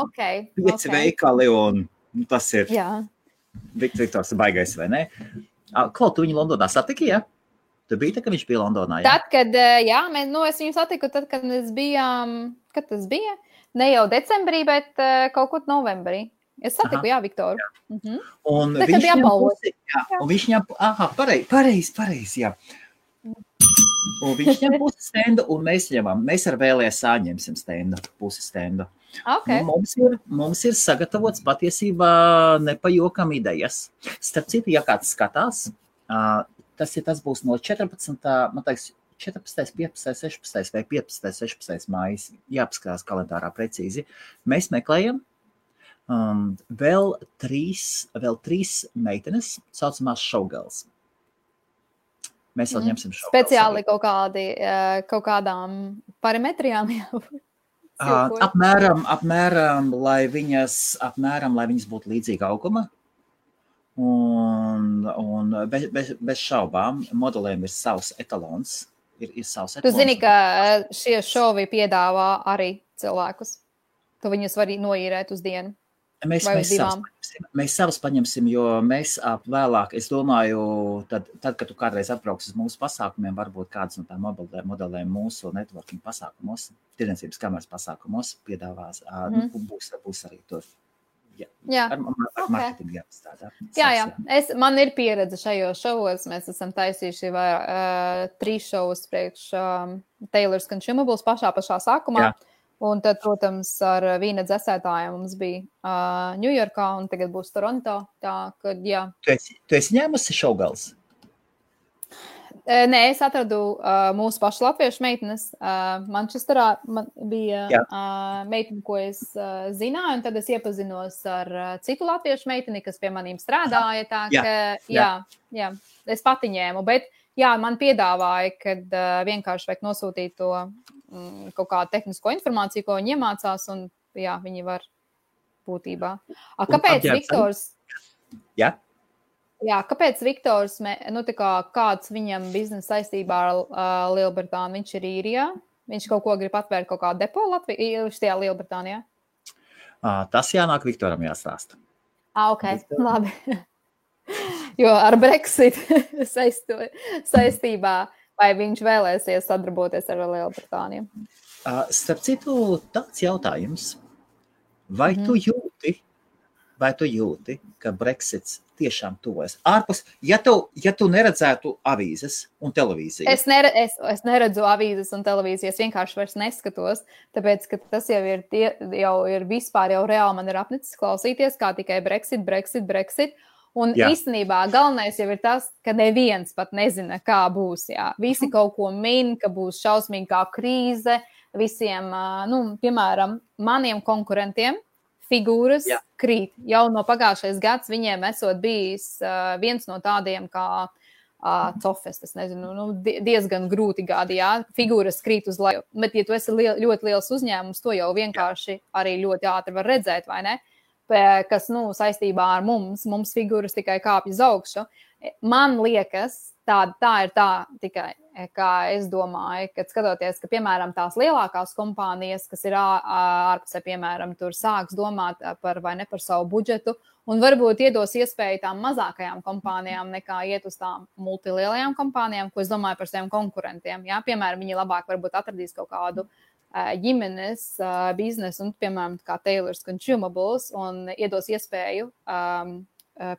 Okay. 5 veikali, un tas ir Viktors baigais, vai ne? Klau, tu viņu Londonā satiki, ja? Tu biji tā, ka viņš bija Londonā, jā? Tad, kad, es viņu satiku, tad, kad mēs bijām, kad tas bija? Ne jau decembrī, bet kaut kur novembrī. Es satiku, Viktoru. Jā. Un tad, kad apbalvot. Un viņš ņem, pareizi, jā. Un viņš ņem pusi stendu, un mēs ar VLSA ņemsim stendu, pusi stendu. Okay. Mums ir sagatavots patiesībā nepajokam idejas. Starp citu, ja kāds skatās, tas būs no 14. Man teiks, 14., 15., 16. vai 15., 16. mājas, jāpaskatās kalendārā precīzi. Mēs meklējam vēl trīs meitenes, saucamās showgirls. Mēs vēl ņemsim showgirls. Speciāli kaut kādām parametrijām jābūt. Apmēram, lai viņas būtu līdzīga auguma. Un bez šaubām modelēm ir savs etalons. Ir savs etalons. Tu zini, ka šie šovi piedāvā arī cilvēkus. Tu viņus var noīrēt uz dienu. Mēs savus paņemsim, jo mēs vēlāk, es domāju, tad, kad tu kādreiz atbrauks uz mūsu pasākumiem, varbūt kādas no tām modelēm mūsu networking pasākumos, tirdzniecības kameras pasākumos piedāvās, būs arī tur. Ar marketingu jāpastrādā. Jā. Man ir pieredze šajos šovos. Mēs esam taisījuši 3 šovus priekš Taylor's Consumables pašā sākumā. Jā. Un tad, protams, ar vīna dzēsētājiem mums bija Ņujorkā un tagad būs Toronto. Tā, kad, jā. Tu esi ņēmusi showgirls? Nē, es atradu mūsu pašu latviešu meitenes. Manchesterā bija meitene, ko es zināju, un tad es iepazinos ar citu latviešu meiteni, kas pie manīm strādāja. Tā, ka, es pati ņēmu, bet man piedāvāja, kad vienkārši vajag nosūtīt to kaut kādu tehnisko informāciju, ko viņi iemācās, un viņi var būtībā. Kāpēc Viktors? Jā? Jā, kāpēc Viktors, kāds viņam biznesa saistībā ar Lielbritāniju? Viņš ir īrijā? Viņš kaut ko grib atvērt, kaut kādu depo šajā Lielbritānijā? Tas jānāk Viktoram jāstāsta. Ok, labi. Jo ar Brexit saistībā, vai viņš vēlēsies sadarboties ar Lielbritāniju? Starp citu, tāds jautājums. Vai tu jūti, ka Brexits tiešām tuvojas? Ārpus, ja tu neredzētu avīzes un televīziju. Es neredzu avīzes un televīziju, es vienkārši vairs neskatos, tāpēc, ka tas jau ir vispār jau reāli man ir apnicis klausīties, kā tikai Brexit. Un īstenībā galvenais jau ir tas, ka neviens pat nezina, kā būs. Jā. Visi kaut ko min, ka būs šausmīgā krīze. Visiem, piemēram, maniem konkurentiem figūras krīt. Jau no pagājušais gads viņiem esot bijis viens no tādiem kā Cofes, es nezinu, diezgan grūti gadi, figūras krīt uz leju. Bet, ja tu esi ļoti liels uzņēmums, to jau vienkārši arī ļoti ātri var redzēt, vai ne? Kas, saistībā ar mums figūras tikai kāpj uz augšu. Man liekas, tā ir tā tikai, kā es domāju, kad skatoties, ka, piemēram, tās lielākās kompānijas, kas ir ārpusē, piemēram, tur sāks domāt par savu budžetu un varbūt iedos iespēju tām mazākajām kompānijām nekā iet uz tām multilielajām kompānijām, ko es domāju par saviem konkurentiem. Jā? Piemēram, viņi labāk varbūt atradīs kaut kādu ģimenes biznesu un, piemēram, kā Taylor's Consumables un iedos iespēju,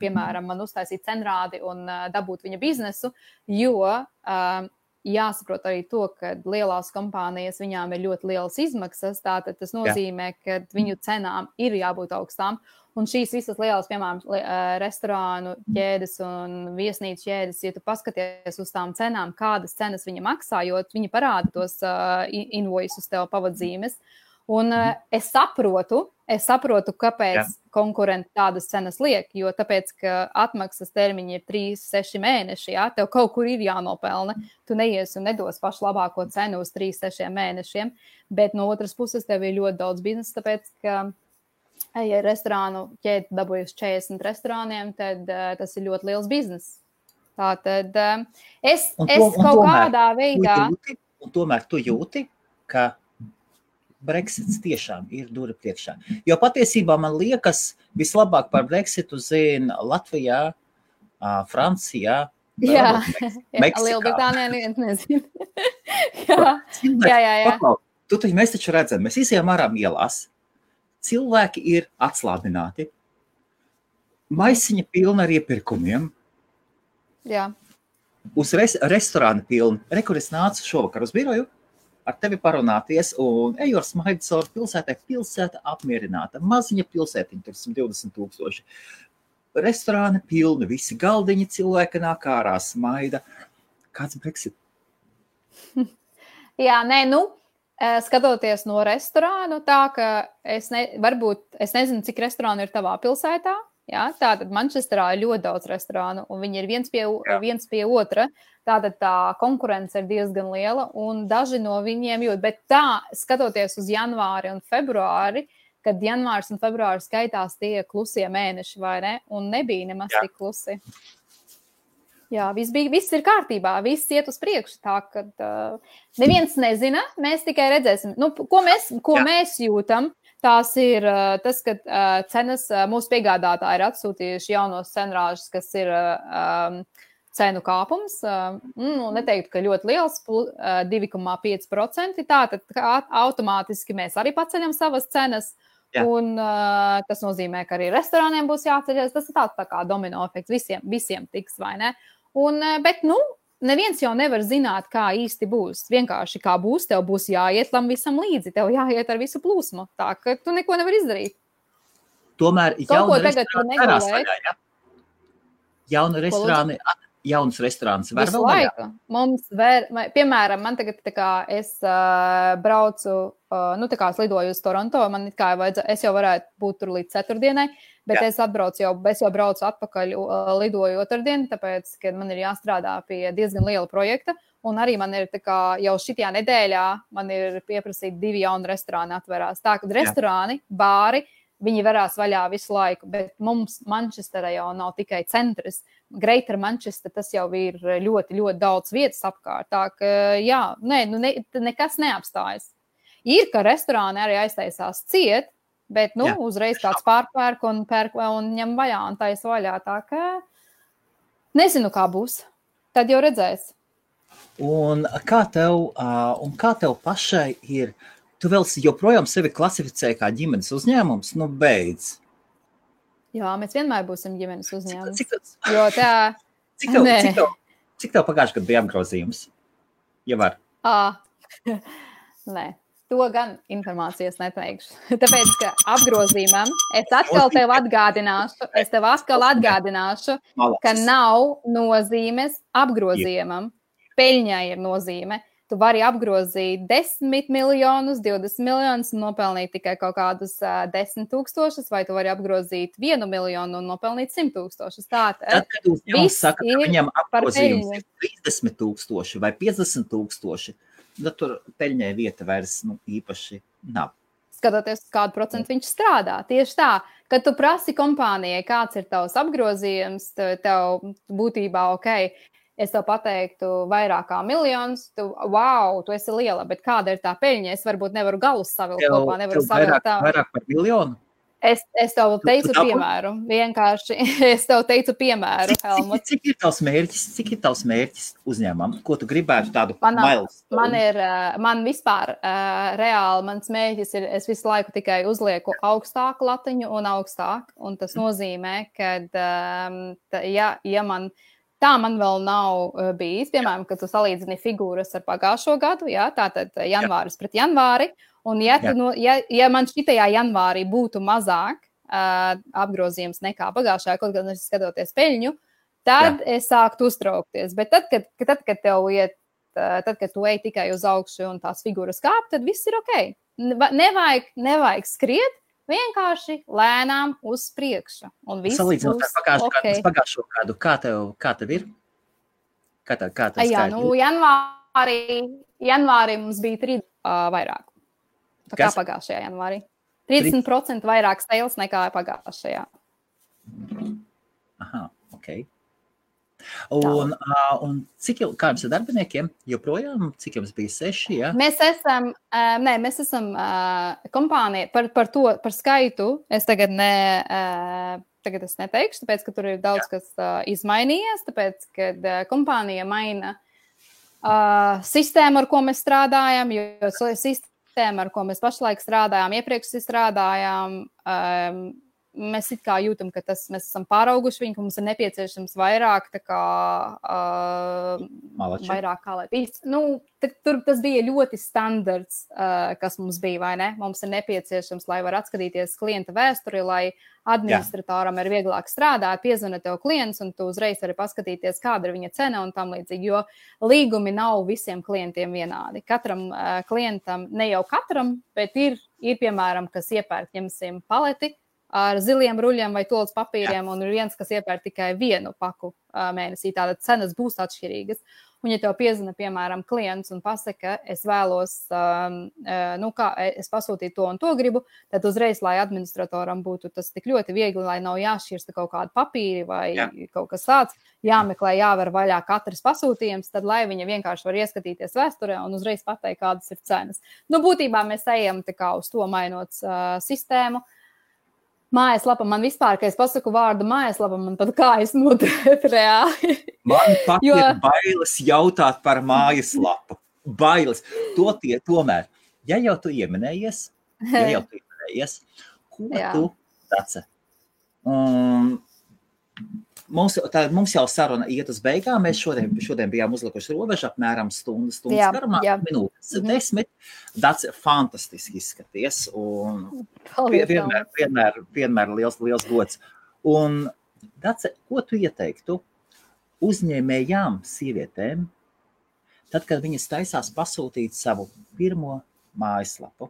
piemēram, man uztaisīt cenrādi un dabūt viņa biznesu, jo jāsaprot arī to, ka lielās kompānijas viņām ir ļoti lielas izmaksas, tātad tas nozīmē, ka viņu cenām ir jābūt augstām. Un šīs visas lielās, piemēram, restorānu ķēdes un viesnīcu ķēdes, ja tu paskaties uz tām cenām, kādas cenas viņa maksā, jo viņi parāda tos invoices tev pavadzīmes. Un es saprotu, kāpēc konkurenti tādas cenas liek, jo tāpēc, ka atmaksas termiņi ir 3-6 mēneši, tev kaut kur ir jānopelna. Tu neies un nedos pašu labāko cenu uz 3-6 mēnešiem, bet no otras puses tev ir ļoti daudz biznesa, tāpēc, ka ja restorānu ķēdi dabūjas 40 restorāniem, tad tas ir ļoti liels biznes. Tātad es kaut kādā veidā... Un tomēr tu jūti, ka Brexits tiešām ir dura priekšā. Jo patiesībā man liekas, vislabāk par Brexitu zina Latvijā, Francijā Jā, Lielbritānijā neviens nezina. jā. Paklau, mēs taču redzam, mēs izējām ārā ielās, cilvēki ir atslābināti, maisiņa pilna ar iepirkumiem, jā. Uz restorāna pilna. Kur es nācu šovakar uz biroju, ar tevi parunāties, un eju ar smaidu caur pilsētai, pilsēta apmierināta, maziņa pilsētiņa, tur 120,000. Restorāni pilni, visi galdiņi, cilvēki nāk ārā, smaida. Kāds Brexit? Jā, skatoties no restorānu, tā ka varbūt es nezinu, cik restorānu ir tavā pilsētā. Jā, tātad Mančesterā ir ļoti daudz restorānu, un viņi ir viens pie otra. Tātad tā konkurence ir diezgan liela, un daži no viņiem jūt. Bet tā, skatoties uz janvāri un februāri, kad janvārs un februāris skaitās tie klusie mēneši, vai ne? Un nebija nemaz tik klusi. Jā, viss ir kārtībā, viss iet uz priekšu. Tā, kad neviens nezina, mēs tikai redzēsim. Ko mēs jūtam? Tās ir tas, ka cenas mūsu piegādātāji ir atsūtījuši jaunos cenrāžus, kas ir cenu kāpums. Neteiktu, ka ļoti liels, 2,5%. Tātad automātiski mēs arī paceļam savas cenas. Jā. Un tas nozīmē, ka arī restorāniem būs jāceļas. Tas ir tāds tā kā domino efekts. Visiem tiks, vai ne? Bet, neviens jau nevar zināt, kā īsti būs. Vienkārši kā būs, tev būs jāiet tam visam līdzi. Tev jāiet ar visu plūsmu. Tā, ka tu neko nevar izdarīt. Tomēr jaunas restorānas var vēl vaļā. Mums piemēram, man tagad es braucu, es lidoju uz Toronto, es jau varētu būt tur līdz ceturtdienai, bet es jau braucu atpakaļ, lidoju otrdien, tāpēc, ka man ir jāstrādā pie diezgan liela projekta, un arī man ir jau šitajā nedēļā, man ir pieprasīti 2 jauni restorāni atverās. Tā, kad restorāni, bāri, viņi varās vaļā visu laiku, bet mums Mančesterā jau nav tikai centrs. Greater Manchester, tas jau ir ļoti, ļoti daudz vietas apkārt. Tā ka, nekas neapstājas. Ir, ka restorāni arī aiztaisās ciet, bet, uzreiz kāds pārpērk un ņem vaļā un taisa vaļā. Tā ka nezinu, kā būs. Tad jau redzēs. Un kā tev pašai ir? Tu vēl joprojām sevi klasificē kā ģimenes uzņēmums? Beidz. Jā, mēs vienmēr būsim ģimenes uzņēmums. Cik tev pagājušajā gadā bija apgrozījums? Ja var. Nē, to gan informācijas neteikšu. Tāpēc, ka apgrozījumam es atkal tev atgādināšu, ka nav nozīmes apgrozījumam. Peļņai ir nozīme. Tu vari apgrozīt 10 miljonus, 20 miljonus un nopelnīt tikai kaut kādus 10,000, vai tu vari apgrozīt 1 miljonu un nopelnīt 100,000. Tad, kad uzņēmums saka, ka viņam apgrozījums ir 30,000 vai 50,000, tad tur peļņai vieta vairs īpaši nav. Skatoties, kādu procentu viņš strādā. Tieši tā, kad tu prasi kompānijai, kāds ir tavs apgrozījums, tev būtībā es tev pateiktu vairāk kā miljonus, tu esi liela, bet kāda ir tā peļņa? Es varbūt nevaru galus savilkt kopā, nevaru savilkt tā. Vairāk par miljonu? Es tev teicu piemēru, vienkārši. Es tev teicu piemēru, Helmut. Cik ir tavs mērķis uzņēmumam? Ko tu gribētu tādu milestone? Man vispār reāli, mans mērķis ir, es visu laiku tikai uzlieku augstāku latiņu un augstāk, un tas nozīmē, ka, tā man vēl nav bijis, piemēram, kad tu salīdzini figūras ar pagājušo gadu, tātad janvāris pret janvāri, un ja man šitajā janvārī būtu mazāk apgrozījums nekā pagājušajā, kaut gan es skatoties peļņu, tad es sāktu uztraukties. Bet tad, kad tu ej tikai uz augšu un tās figūras kāp, tad viss ir ok. Nevajag skriet, vienkārši lēnām uz priekšu. Salīdzinot ar pagājušo gadu, kā tev ir? Kā tev janvārī mums bija 3 vairāk. Tā kā pagājušajā janvārī. 30% vairāk sales nekā pagājušajā. Aha, ok. Un cik jau, kā jums ar darbiniekiem? Joprojām, cik jums bija 6, ja? Mēs esam kompānija par skaitu. Es tagad tagad es neteikšu, tāpēc, ka tur ir daudz kas izmainījies, tāpēc, kad kompānija maina sistēmu, ar ko mēs strādājam, jo sistēma, ar ko mēs pašlaik strādājām, iepriekš strādājām, mēs it kā jūtam, ka mēs esam pārauguši viņu, ka mums ir nepieciešams vairāk, tā kā, vairāk kā lai pīst. Tur tas bija ļoti standarts, kas mums bija, vai ne? Mums ir nepieciešams, lai var atskatīties klienta vēsturi, lai administratoram ir vieglāk strādāt, piezvana tev klients, un tu uzreiz vari paskatīties, kāda ir viņa cena un tam līdzīgi, jo līgumi nav visiem klientiem vienādi. Katram klientam, ne jau katram, bet ir piemēram, kas iepērk, ņemsim, paleti ar ziliem ruļiem vai tolas papīriem, un ir viens, kas iepērk tikai vienu paku mēnesī, tātad cenas būs atšķirīgas. Un ja tev piezvana, piemēram, klients un pasaka, es vēlos, es pasūtīju to un to gribu, tad uzreiz, lai administratoram būtu tas tik ļoti viegli, lai nav jāšķirsta kaut kāda papīri vai kaut kas tāds, jāmeklē, jāver vaļā katrs pasūtījums, tad lai viņa vienkārši var ieskatīties vēsturē un uzreiz pateikt, kādas ir cenas. Būtībā mēs ejam tā kā uz to mainot sistēmu. Mājaslapa man vispār, kad es pasaku vārdu mājaslapa, man pat kājas notiek reāli. Man pat ir bailes jautāt par mājaslapu. Bailes. Tomēr, ja jau tu ieminējies, ko tu daci? Mums jau saruna iet uz beigām. Mēs šodien bijām uzlikuši robežu apmēram stundas garumā, minūtes 10. Daci fantastiski izskaties un vienmēr liels gods. Un Daci, ko tu ieteiktu uzņēmējām sievietēm, tad, kad viņas taisās pasūtīt savu pirmo mājaslapu?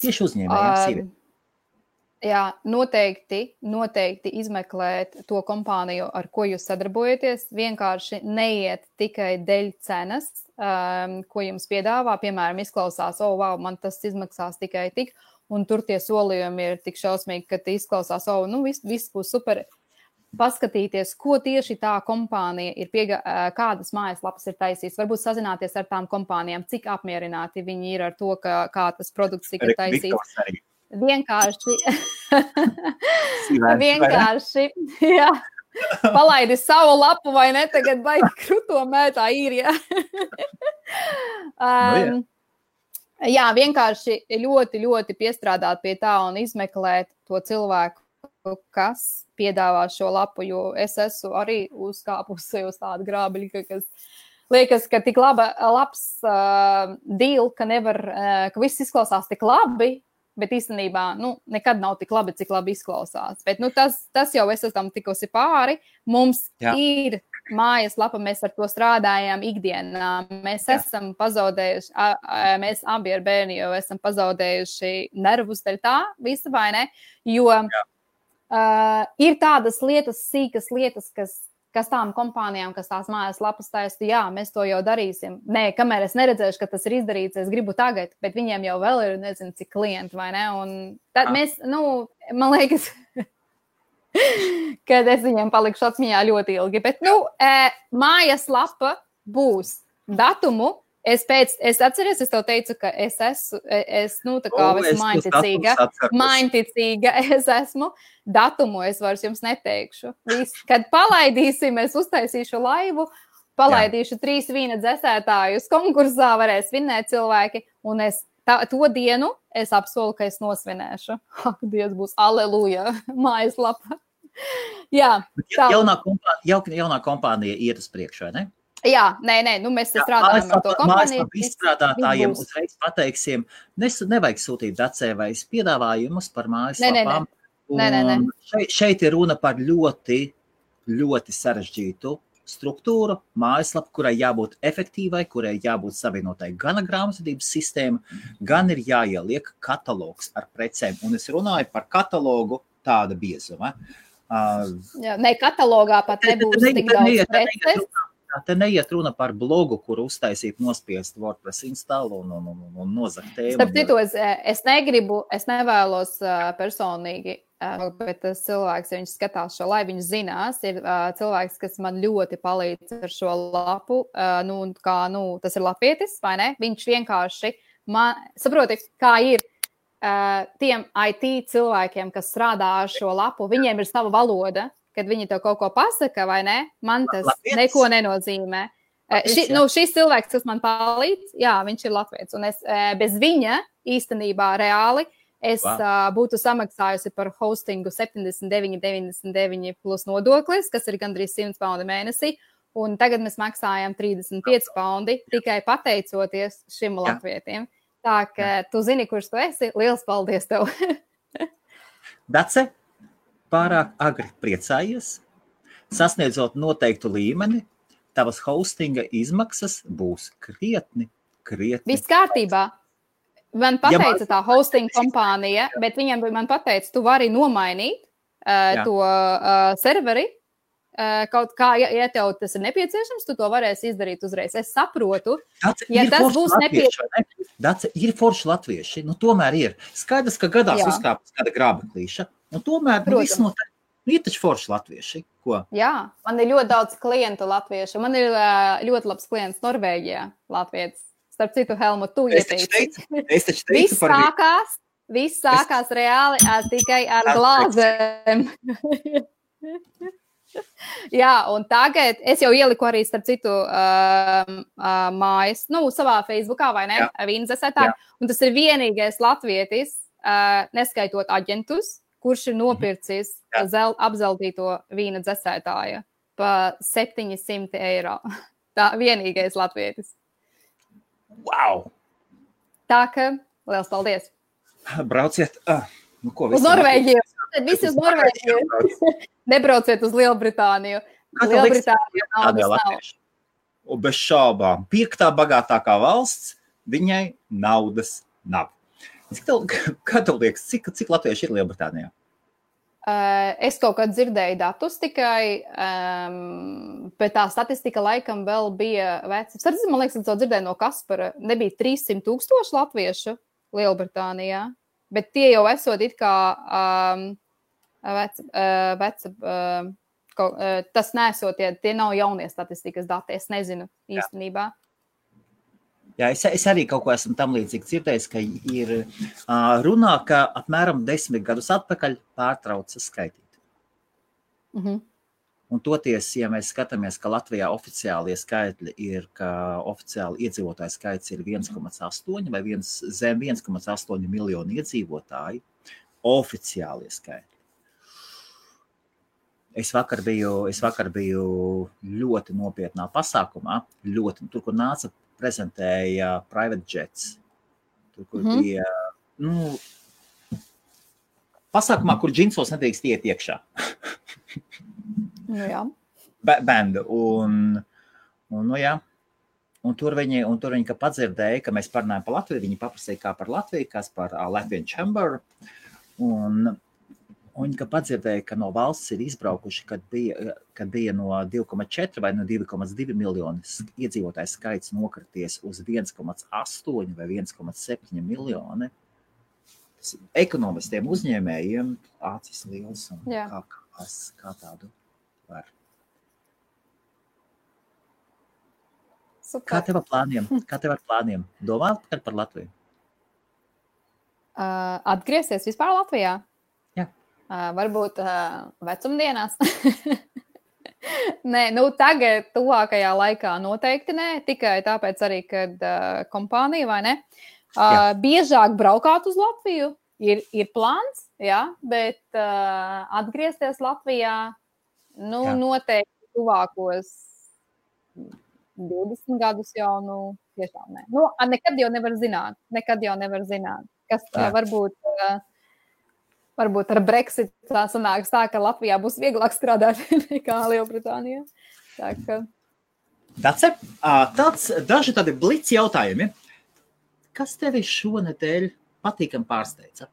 Tieši uzņēmējām sievietēm. Jā, noteikti izmeklēt to kompāniju, ar ko jūs sadarbojaties. Vienkārši neiet tikai dēļ cenas, ko jums piedāvā. Piemēram, izklausās, wow, man tas izmaksās tikai tik, un tur tie solījumi ir tik šausmīgi, ka izklausās, viss būs super. Paskatīties, ko tieši tā kompānija ir kādas mājaslapas ir taisījis. Varbūt sazināties ar tām kompānijām, cik apmierināti viņi ir ar to, kā tas produkts tika taisīts. Vienkārši, jā, palaidi savu lapu vai ne, tagad baigi kruto mētā īrijā. Jā, vienkārši ļoti, ļoti piestrādāt pie tā un izmeklēt to cilvēku, kas piedāvā šo lapu, jo es esmu arī uzkāpusi uz tādu grābeļu, kas liekas, ka tik labs deal, ka viss izklausās tik labi, bet īstenībā, nekad nav tik labi, cik labi izklausās. Bet, tas jau es esam tikusi pāri. Mums ir mājaslapa, mēs ar to strādājām ikdienā. Mēs esam pazaudējuši, mēs abi ar bērni jau esam pazaudējuši nervus dēļ tā, visa vai ne? Jo ir tādas lietas, sīkas lietas, kas tām kompānijām, kas tās mājaslapas taisa, jā, mēs to jau darīsim. Nē, kamēr es neredzēšu, ka tas ir izdarīts, es gribu tagad, bet viņiem jau vēl ir, nezinu, cik klienti, vai ne? Un tad mēs, man liekas, kad es viņiem palikšu atmiņā ļoti ilgi, bet, mājaslapa būs datumu. Es atceries, es tev teicu, ka es esmu mainticīga, es esmu. Datumu es vairs jums neteikšu. Kad palaidīsim, es uztaisīšu laivu, palaidīšu 3 vīna dzesētājus konkursā, varēs vinēt cilvēki, un to dienu es apsolu, ka es nosvinēšu. Ak, Dievs, būs aleluja, mājaslapa. Jā. Jaunā kompānija iet uz priekšu, vai ne? Jā, nē, mēs strādājam ar to kompāniju. Mājaslapa izstrādātājiem uzreiz pateiksim, nevajag sūtīt Dacē vai piedāvājumus par mājaslapām. Nē. Šeit ir runa par ļoti, ļoti sarežģītu struktūru, mājaslapu, kurai jābūt efektīvai, kurai jābūt savienotai gan ar grāmatvedības sistēmu, gan ir jāieliek katalogs ar precēm. Un es runāju par katalogu tāda biezuma. Jā, ne, katalogā pat nebūs tik daudz preces. Te neiet runa par blogu, kur uztaisīt nospiest WordPress installu un nozakt tēmu. Starp citu, es nevēlos personīgi, bet tas cilvēks, ja viņš skatās šo, lai viņš zinās, ir cilvēks, kas man ļoti palīdz ar šo lapu, tas ir latvietis, vai ne? Viņš vienkārši, saproti, kā ir tiem IT cilvēkiem, kas strādā ar šo lapu, viņiem ir sava valoda, kad viņi tev kaut ko pasaka, vai ne? Man tas neko nenozīmē. Šis cilvēks, kas man palīdz, jā, viņš ir latvietis. Un es bez viņa īstenībā reāli būtu samaksājusi par hostingu 79,99 plus nodoklis, kas ir gandrīz 100 paundi mēnesī. Un tagad mēs maksājam 35 paundi tikai pateicoties šim latvietim. Tā ka tu zini, kurš tu esi. Liels paldies tev! Dace, pārāk agri priecājies, sasniedzot noteiktu līmeni, tavas hostinga izmaksas būs krietni. Viss kārtībā. Man pateica tā hosting kompānija, bet viņam man pateica, tu vari nomainīt to serveri, kaut kā, ja tev tas ir nepieciešams, tu to varēsi izdarīt uzreiz. Es saprotu, ja tas būs nepieciešams. Dace, ir forši latvieši, tomēr ir. Skaidrs, ka gadās uzkāpjas kāda grābeklīša. Tomēr viss ir taču forši latvieši. Ko? Jā, man ir ļoti daudz klientu latviešu. Man ir ļoti labs klients Norvēģijā, latvietis. Starp citu, Helmut, tu ieteici. Es taču teicu par Viss sākās reāli tikai ar glāzēm. Jā, un tagad es jau ieliku arī, starp citu, mājas, savā Facebookā, vai ne? Vīna dzesētāji. Un tas ir vienīgais latvietis, neskaitot aģentus, kurš ir nopircis apzeltīto vīna dzesētāja pa 700 eiro. Tā vienīgais latvietis. Wow! Tā ka, liels paldies! Brauciet! Uz Norvēģiju! Visi uz Norvēģiju! Nebrauciet uz Lielbritāniju! Lielbritānija naudas nav. Un bez šaubām, 5. bagātākā valsts, viņai naudas nav. Kā tev liekas, cik latvieši ir Lielbritānijā? Es kaut kad dzirdēju datus tikai, bet tā statistika laikam vēl bija veca. Man liekas, es to dzirdēju no Kaspara. Nebija 300,000 latviešu Lielbritānijā, bet tie jau esot it kā tas nesot, tie nav jaunie statistikas dati. Es nezinu īstenībā. Jā, es arī kaut ko esmu tam līdzīgi dzirdējis, ka ir runā, ka apmēram 10 gadus atpakaļ pārtrauca skaitīt. Un toties, ja mēs skatāmies, ka Latvijā oficiālie skaitļi ir, ka oficiāli iedzīvotāju skaits ir 1,8 vai zem 1,8 miljonu iedzīvotāji, oficiālie skaitļi. Es vakar biju ļoti nopietnā pasākumā, tur, kur nāca prezentēja private jets. Tur, kur bija, pasākumā, kur džinsos nedrīkst iet iekšā. Jā. Bendu. Un tur viņi, ka padzirdēja, ka mēs parunājam par Latviju, viņi paprasīja kā par Latviju, kas par Latvian Chamber. Un viņi, ka padzirdēja, ka no valsts ir izbraukuši, kad bija no 2,4 vai no 2,2 miljonu iedzīvotāju skaits nokrities uz 1,8 vai 1,7 miljoni. Tas ekonomistiem uzņēmējiem acis liels un kā tādu var. Super. Kā tev ar plāniem? Domā par Latviju? Atgriezties vispār Latvijā? Varbūt vecumdienās. Nē, tagad tuvākajā laikā noteikti nē, tikai tāpēc arī, kad kompānija, vai ne, biežāk braukāt uz Latviju, ir plāns, bet atgriezties Latvijā, noteikti tuvākos 20 gadus jau, tiešām nē. Nekad jau nevar zināt, kas varbūt ar Brexit tā sanāks tā, ka Latvijā būs vieglāk strādāt nekā Lielbritānijā. Dace, daži tādi blitz jautājumi. Kas tevi šonedēļ patīkam pārsteidza?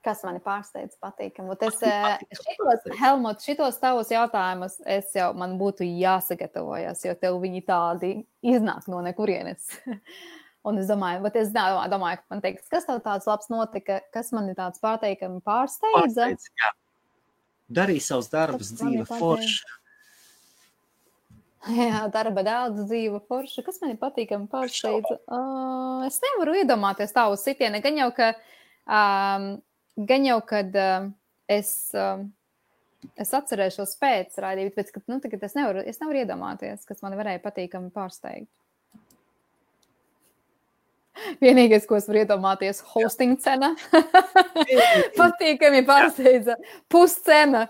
Kas mani pārsteidz patīkam? Helmut, šitos tavus jautājumus man būtu jāsagatavojas, jo tev viņi tādi iznāk no nekurienes. Un es domāju, ka man teiks, kas tev tāds labs notika, kas mani tāds patīkami pārsteidza? Jā. Darīja savus darbus, dzīve forša. Jā, darba daudz, dzīve forša. Kas mani patīkami pārsteidza? Es nevaru iedomāties tā uz sitieni. Gan jau, kad es atcerēšos pēc raidījuma, bet tagad es nevaru iedomāties, kas mani varēja patīkami pārsteigt. Vienīgais, ko es varu iedomāties, hosting cena. Patīkami pārsteidza. Puscena.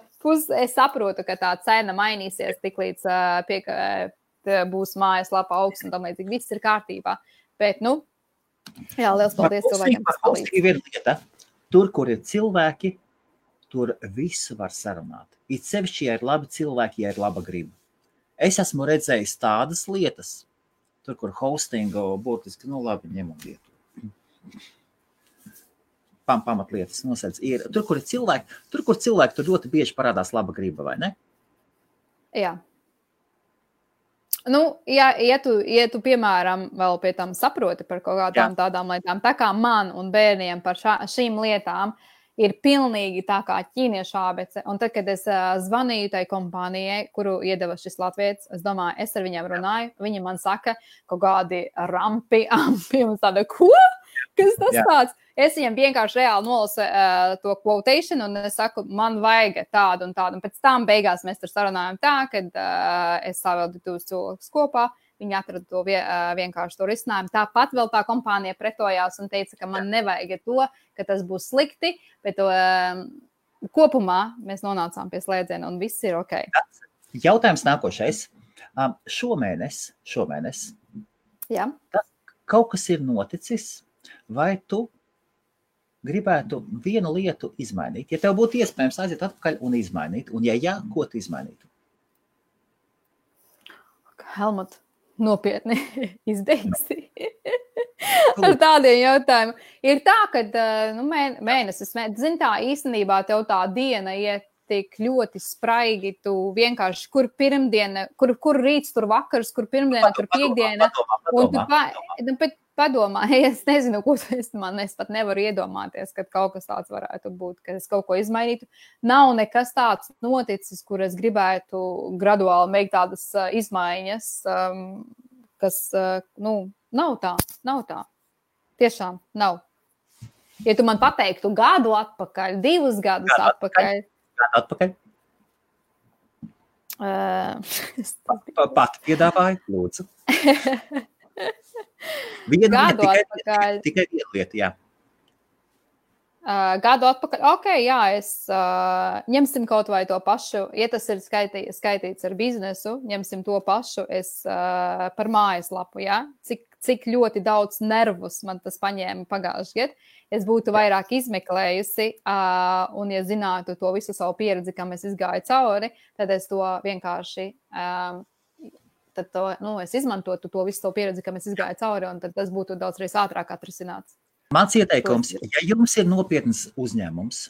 Es saprotu, ka tā cena mainīsies tik līdz būs mājaslapa augsts un tam līdzīgi viss ir kārtībā. Bet, jā, liels paldies cilvēkiem, kas palīdz. Ir lieta. Tur, kur ir cilvēki, tur visu var sarunāt. It sevišķi, ja ir labi cilvēki, ja ir laba griba. Es esmu redzējis tādas lietas, tur, kur hostingu būtiski, labi, ņemam vietu. Pamatlietas nosēdz. Tur, kur ir cilvēki, tur ļoti bieži parādās laba griba, vai ne? Jā. Ja tu, piemēram, vēl pie tam saproti par kaut kādām tādām lietām, tā kā man un bērniem par šīm lietām ir pilnīgi tā kā ķīniešu ābece. Un tad, kad es zvanīju tai kompānijai, kuru iedeva šis latvietis, es domāju, es ar viņiem runāju, viņi man saka kaut kādi ampi, un tāda, ko? Kas tas tāds? Es viņam vienkārši reāli nolasu to quotation, un es saku, man vajag tādu un tādu. Un pēc tam beigās mēs tur sarunājam tā, kad es savildu 2 cilvēkus kopā, viņi atrada to vienkārši to risinājumu. Tāpat vēl tā kompānija pretojās un teica, ka man nevajag to, ka tas būs slikti, bet kopumā mēs nonācām pie slēdziena un viss ir ok. Jautājums nākošais. Šomēnes. Jā. Kaut kas ir noticis, vai tu gribētu vienu lietu izmainīt? Ja tev būtu iespējams aiziet atpakaļ un izmainīt, un ja jā, ko tu izmainītu? Helmut, nopietni izbeigsi ar tādiem jautājumiem. Ir tā, ka mēnesis, zini tā, īstenībā tev tā diena iet tik ļoti spraigi, tu vienkārši, kur pirmdiena, kur rīts, tur vakars, kur pirmdiena, kur piekdiena. Padomā, es nezinu, ko es pat nevaru iedomāties, kad kaut kas tāds varētu būt, ka es kaut ko izmainītu. Nav nekas tāds noticis, kur es gribētu graduāli veikt tādas izmaiņas, kas, nav tā. Tiešām nav. Ja tu man pateiktu gadu atpakaļ, 2 gadus atpakaļ. Atpakaļ? Pat piedāvāju, lūdzu. Tikai viena lieta, jā. Gadu atpakaļ, jā, es ņemsim kaut vai to pašu, ja tas ir skaitīts ar biznesu, ņemsim to pašu, es par mājaslapu, jā, cik ļoti daudz nervus man tas paņēma pagājuši gadu, es būtu vairāk izmeklējusi, un ja zinātu to visu savu pieredzi, kam es izgāju cauri, tad es to vienkārši... es izmantotu to visu savu pieredzi, kam es izgāju cauri, un tad tas būtu daudz reiz ātrāk atrisināts. Mans ieteikums, ja jums ir nopietns uzņēmums,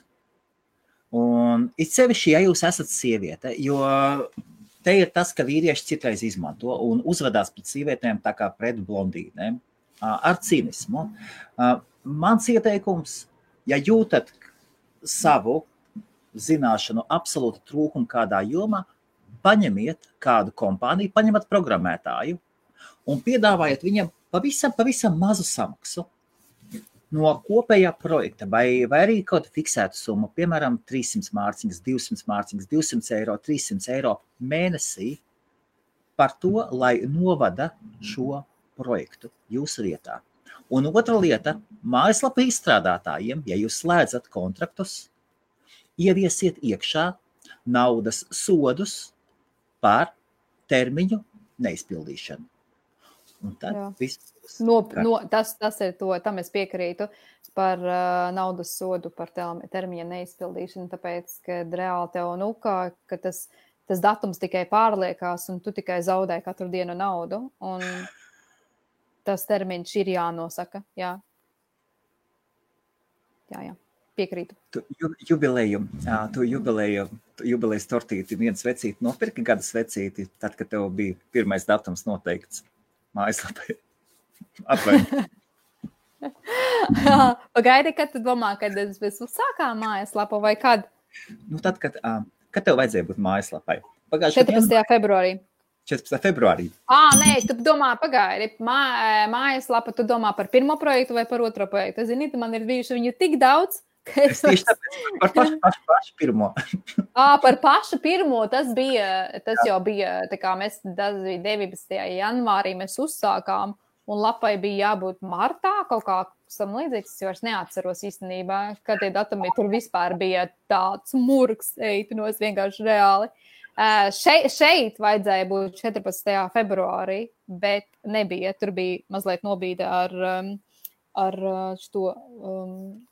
un it sevišķi, ja jūs esat sieviete, jo te ir tas, ka vīrieši citreiz izmanto un uzvedās pret sievietēm tā kā pret blondīnēm, ar cinismu. Mans ieteikums, ja jūtat savu zināšanu absolūti trūkumu kādā jomā, paņemiet kādu kompāniju, paņemat programmētāju un piedāvājiet viņam pavisam mazu samaksu no kopējā projekta, vai arī kaut fiksētu summu, piemēram, 300 mārciņas, 200 mārciņas, 200 eiro, 300 eiro mēnesī par to, lai novada šo projektu jūsu vietā. Un otra lieta, mājaslapa izstrādātājiem, ja jūs slēdzat kontraktus, ieviesiet iekšā naudas sodus par termiņu neizpildīšanu. Un tad viss. Tas ir to, tam es piekrītu par naudas sodu par termiņa neizpildīšanu, tāpēc, ka reāli tev, ka tas datums tikai pārliekās un tu tikai zaudē katru dienu naudu, un tas termiņš ir jānosaka, jā. Piekrītu. Tu jubilejas tortīti, viens vecīti nopirki gada svecīti, tad, kad tev bija pirmais datums noteikts mājaslapai. Atvainojiet. Pagaidi, kad tu domā, kad mēs uzsākām mājaslapu vai kad? Nu, tad, kad tev vajadzēja būt mājaslapai? 14. februārī. 14. februārī. Nē, tu domā, pagaidi, mājaslapa, tu domā par pirmo projektu vai par otro projektu? Zini, man ir bijuši viņu tik daudz, ka es tieši tāpēc par pašu pirmo. Par pašu pirmo, tas jau bija, tā kā mēs 19. janvārī mēs uzsākām, un lapai bija jābūt martā, kaut kā sam līdzīgs, es vairs neatceros īstenībā, kad tie datumi tur vispār bija tāds murgs, eipinos vienkārši reāli. Šeit vajadzēja būt 14. februārī, bet nebija. Tur bija mazliet nobīde ar šo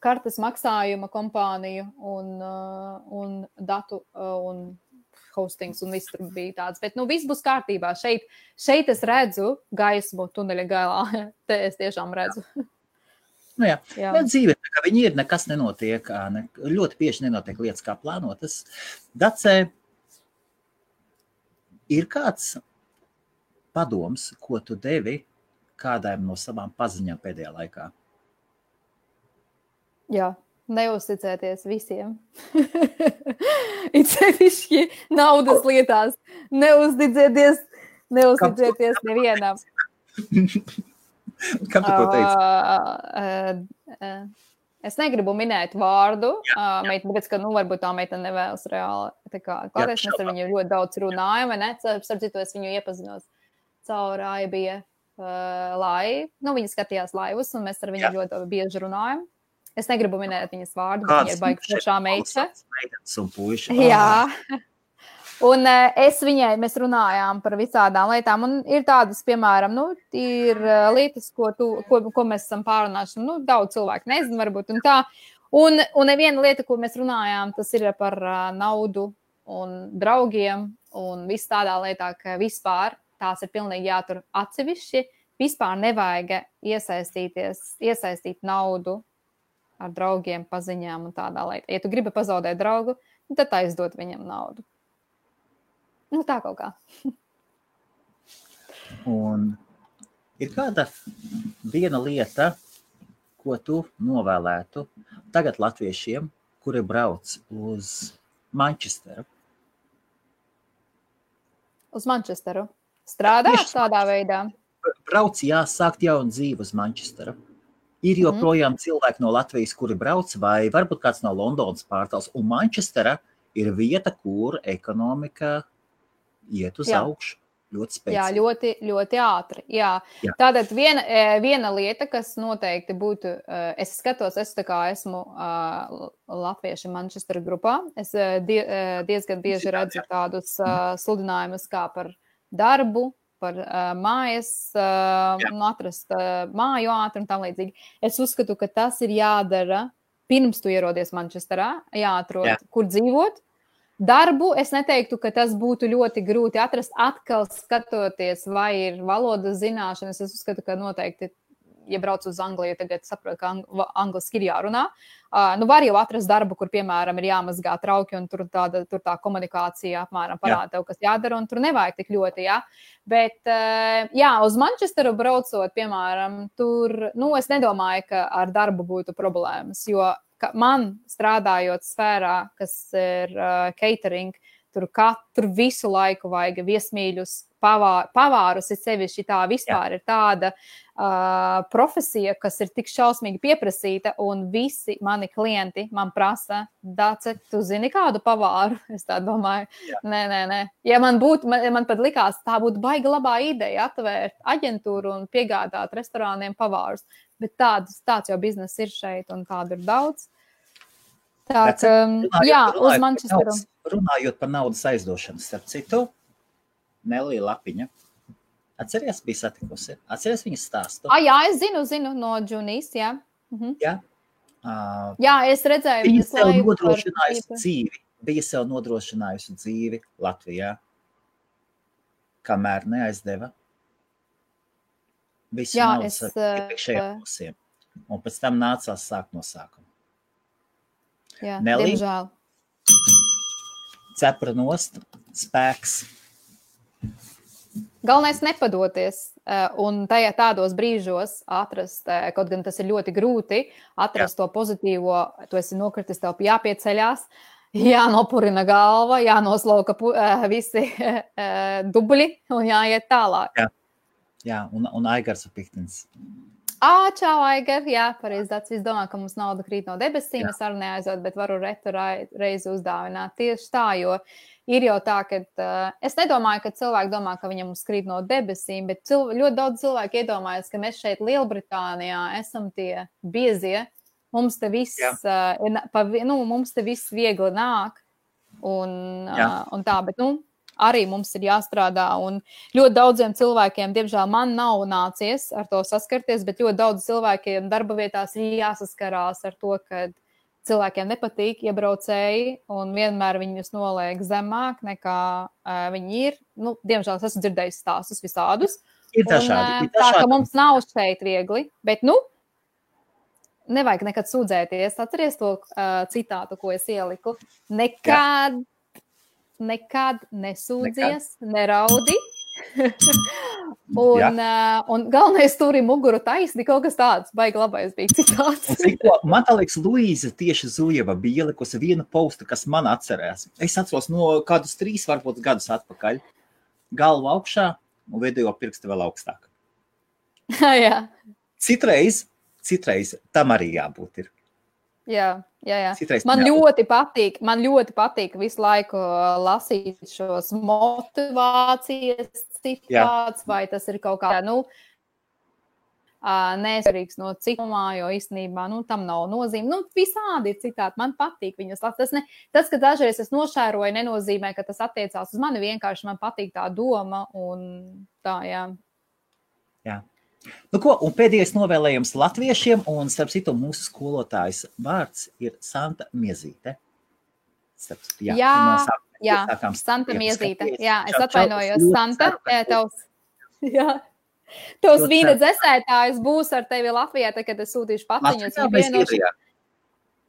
kartes maksājuma kompāniju un datu un hostings un viss tur bija tāds. Bet, viss būs kārtībā. Šeit es redzu gaismu tuneļa galā. Te es tiešām redzu. Nu jā. Dzīve, ka viņi ir, nekas nenotiek, ļoti bieži nenotiek lietas kā plānotas. Dacē, ir kāds padoms, ko tu devi kādām no savām paziņām pēdējā laikā? Jā, neuzticēties visiem. It sevišķi naudas lietās. Neuzticēties nevienam. Kam tu to teici? Es negribu minēt vārdu, tāpēc, ka, varbūt tā meitene nevēlas reāli. Kādreiz mēs ar viņu ļoti daudz runājam, vai ne? Starp citu, es viņu iepazinos caur AIBF laivu. Viņa skatījās laivus, un mēs ar viņu ļoti bieži runājam. Es negribu minēt viņas vārdu, bet viņa ir baigi foršā meitene. Jā. Un mēs runājām par visādām lietām, un ir tādas, piemēram, ir lietas, ko mēs esam pārunājuši, daudz cilvēku nezinu varbūt, un tā. Un viena lieta, ko mēs runājām, tas ir par naudu un draugiem, un viss tādā lietā, ka vispār tās ir pilnīgi jātur atsevišķi, vispār nevajag iesaistīt naudu ar draugiem, paziņām un tādā lietā. Ja tu gribi pazaudēt draugu, tad aizdot viņam naudu. Tā kaut kā. Un ir kāda viena lieta, ko tu novēlētu tagad latviešiem, kuri brauc uz Manchesteru? Uz Manchesteru? Strādāt tādā veidā? Brauc, sākt jaunu dzīvi uz Manchesteru. Ir joprojām cilvēki no Latvijas, kuri brauc, vai varbūt kāds no Londonas pārtals. Un Manchestera ir vieta, kur ekonomika iet uz augšu ļoti spēcīgi. Jā, ļoti, ļoti ātri. Jā. Tātad viena lieta, kas noteikti būtu, es esmu latvieši Manchester grupā. Es diezgan bieži redzu tādus sludinājumus kā par darbu, par mājas, atrast māju ātri un tam līdzīgi. Es uzskatu, ka tas ir jādara pirms tu ierodies Manchesterā, jāatrod, kur dzīvot. Darbu es neteiktu, ka tas būtu ļoti grūti atrast, atkal skatoties, vai ir valodas zināšanas. Es uzskatu, ka noteikti, ja brauc uz Angliju, tagad saprotu, ka angliski ir jārunā. Var jau atrast darbu, kur, piemēram, ir jāmazgā trauki, un tur tā komunikācija apmēram parāda tev, kas jādara, un tur nevajag tik ļoti, Bet, uz Manchesteru braucot, piemēram, tur, es nedomāju, ka ar darbu būtu problēmas, jo man strādājot sfērā, kas ir catering, tur visu laiku vajag viesmīļus, pavārus, ir sevišķi tā vispār ir tāda profesija, kas ir tik šausmīgi pieprasīta, un visi mani klienti man prasa, Dace, tu zini kādu pavāru? Es tā domāju, nē. Ja man pat likās, tā būtu baigi labā ideja atvērt aģentūru un piegādāt restorāniem pavārus, bet tāds jau biznes ir šeit, un tādu ir daudz. Uz Manchesteru. Runājot par naudas aizdošanu, starp citu, Nelija Lapiņa. Atceries, bija satikusi? Atceries viņas stāstu? Jā, es zinu no Džunijas, jā. Jā? Es redzēju viņas laivu. Bija sev nodrošinājusi dzīvi Latvijā, kamēr neaizdeva visu naudas iepriekšējiem pusiem. Un pēc tam nācās sākt no sākuma. Jā, Nelī, diemžēl. cepra nost, spēks. Galvenais nepadoties un tajā tādos brīžos atrast, kaut gan tas ir ļoti grūti, atrast to pozitīvo, tu esi nokritis, tev jāpieceļās, jānopurina galva, jānoslauka visi dubļi un jāiet tālāk. Jā, un Aigars Piktins. Čau, Aigar, jā, pareizi tāds viss domā, ka mums nauda krīt no debesīm, es arī neaizot, bet varu retu reizi uzdāvināt tieši tā, jo ir jau tā, ka es nedomāju, ka cilvēki domā, ka viņam krīt no debesīm, bet ļoti daudz cilvēku iedomājas, ka mēs šeit Lielbritānijā esam tie biezie, mums te viss, mums te viss viegli nāk un tā, bet, arī mums ir jāstrādā, un ļoti daudziem cilvēkiem, diemžēl, man nav nācies ar to saskarties, bet ļoti daudz cilvēkiem darba vietās ir jāsaskarās ar to, ka cilvēkiem nepatīk iebraucēji, un vienmēr viņus noliek zemāk, nekā viņi ir. Diemžēl, es esmu dzirdējis stāstus visādus. Ir dažādi. Tā, ka mums nav šeit viegli, bet, nevajag nekad sūdzēties. Atceries to citātu, ko es ieliku. Nekad nesūdzies, neraudi. un galvenais turi muguru taisni, kaut kas tāds, baigi labais bija citāts. Man tā liekas, Luīza tieši Zujeva bija ielikusi vienu postu, kas man atcerās. Es atceros no kādus 3, varbūt gadus atpakaļ. Galva augšā un video pirksti vēl augstāk. Jā. Citreiz tam arī jābūt ir. Jā. Man ļoti patīk visu laiku lasīt šos motivācijas citāts, vai tas ir kaut kā, nesvarīgs no citumā, jo īstenībā, tam nav nozīme. Visādi ir citāti, man patīk viņus lasīt. Tas, ka dažreiz es nošēroju, nenozīmē, ka tas attiecās uz mani, vienkārši man patīk tā doma un tā, jā. Jā. Un pēdējais novēlējums latviešiem, un starp citu mūsu skolotājs vārds ir Santa Miezīte. Jā, Santa Miezīte. Jā, es atvainojos, Santa. Tavs vīna dzesētājs būs ar tevi Latvijā, kad es sūtīšu paciņas.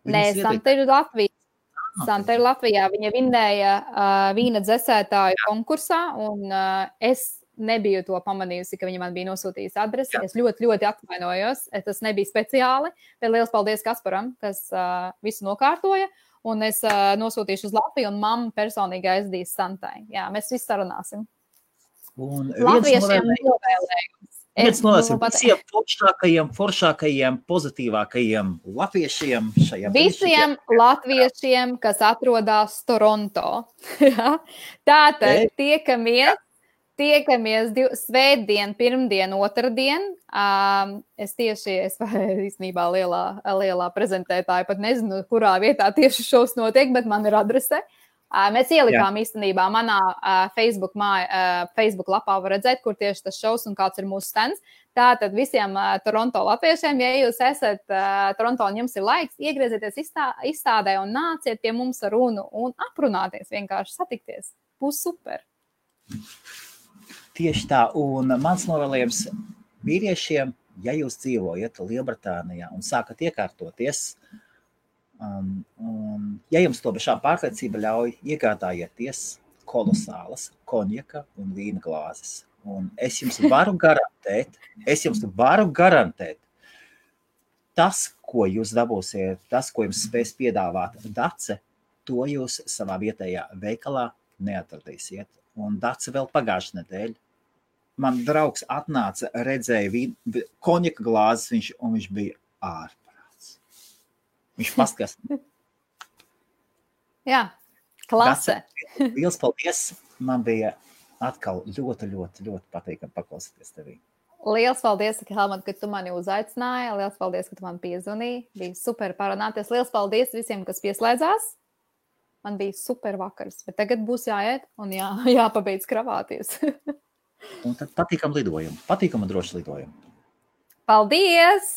Nē, Santa ir Latvijā. Santa ir Latvijā. Viņa vinnēja vīna dzesētāju konkursā, un es nebiju to pamanījusi, ka viņa man bija nosūtījusi adresi. Es ļoti, ļoti atvainojos. Tas nebija speciāli, bet liels paldies Kasparam, kas visu nokārtoja. Un es nosūtīšu uz Latviju, un mamma personīgi aizdīs Santai. Jā, mēs visi sarunāsim. Un latviešiem novēlējums. Viens novēlējums visiem foršākajiem, pozitīvākajiem latviešiem šajā brīdī. Visiem latviešiem, kas atrodas Toronto. Tātad tiekamies svētdien, pirmdien, otrdien. Es īstenībā lielā prezentētāja pat nezinu, kurā vietā tieši šovs notiek, bet man ir adrese. Mēs ielikām īstenībā manā Facebook lapā var redzēt, kur tieši tas šovs un kāds ir mūsu stands. Tātad visiem Toronto latviešiem, ja jūs esat Toronto un jums ir laiks, iegriezieties izstādē un nāciet pie mums ar runu un aprunāties, vienkārši satikties. Būs super. Tieši tā, un mans novēlējums vīriešiem, ja jūs dzīvojat Lielbritānijā un sākat iekārtoties, ja jums to bešā pārliecība ļauj, iegādājieties kolosālas konjaka un vīna glāzes. Un es jums varu garantēt, tas, ko jūs dabūsiet, tas, ko jums spēs piedāvāt Dace, to jūs savā vietējā veikalā neatradīsiet. Un Dace vēl pagājušajā nedēļā. Man draugs atnāca, redzēja konjaka glāzes, viņš bija ārprāts. Viņš paskatās. Jā, klase. Liels paldies. Man bija atkal ļoti, ļoti, ļoti patīkami paklausīties tevī. Liels paldies, Helmut, ka tu mani uzaicināji. Liels paldies, ka tu man piezvanīji. Bija super parunāties. Liels paldies visiem, kas pieslēdzās. Man bija super vakars, bet tagad būs jāiet un jāpabeidz kravāties. Un tad patīkam lidojumu. Patīkam un droši lidojumu. Paldies!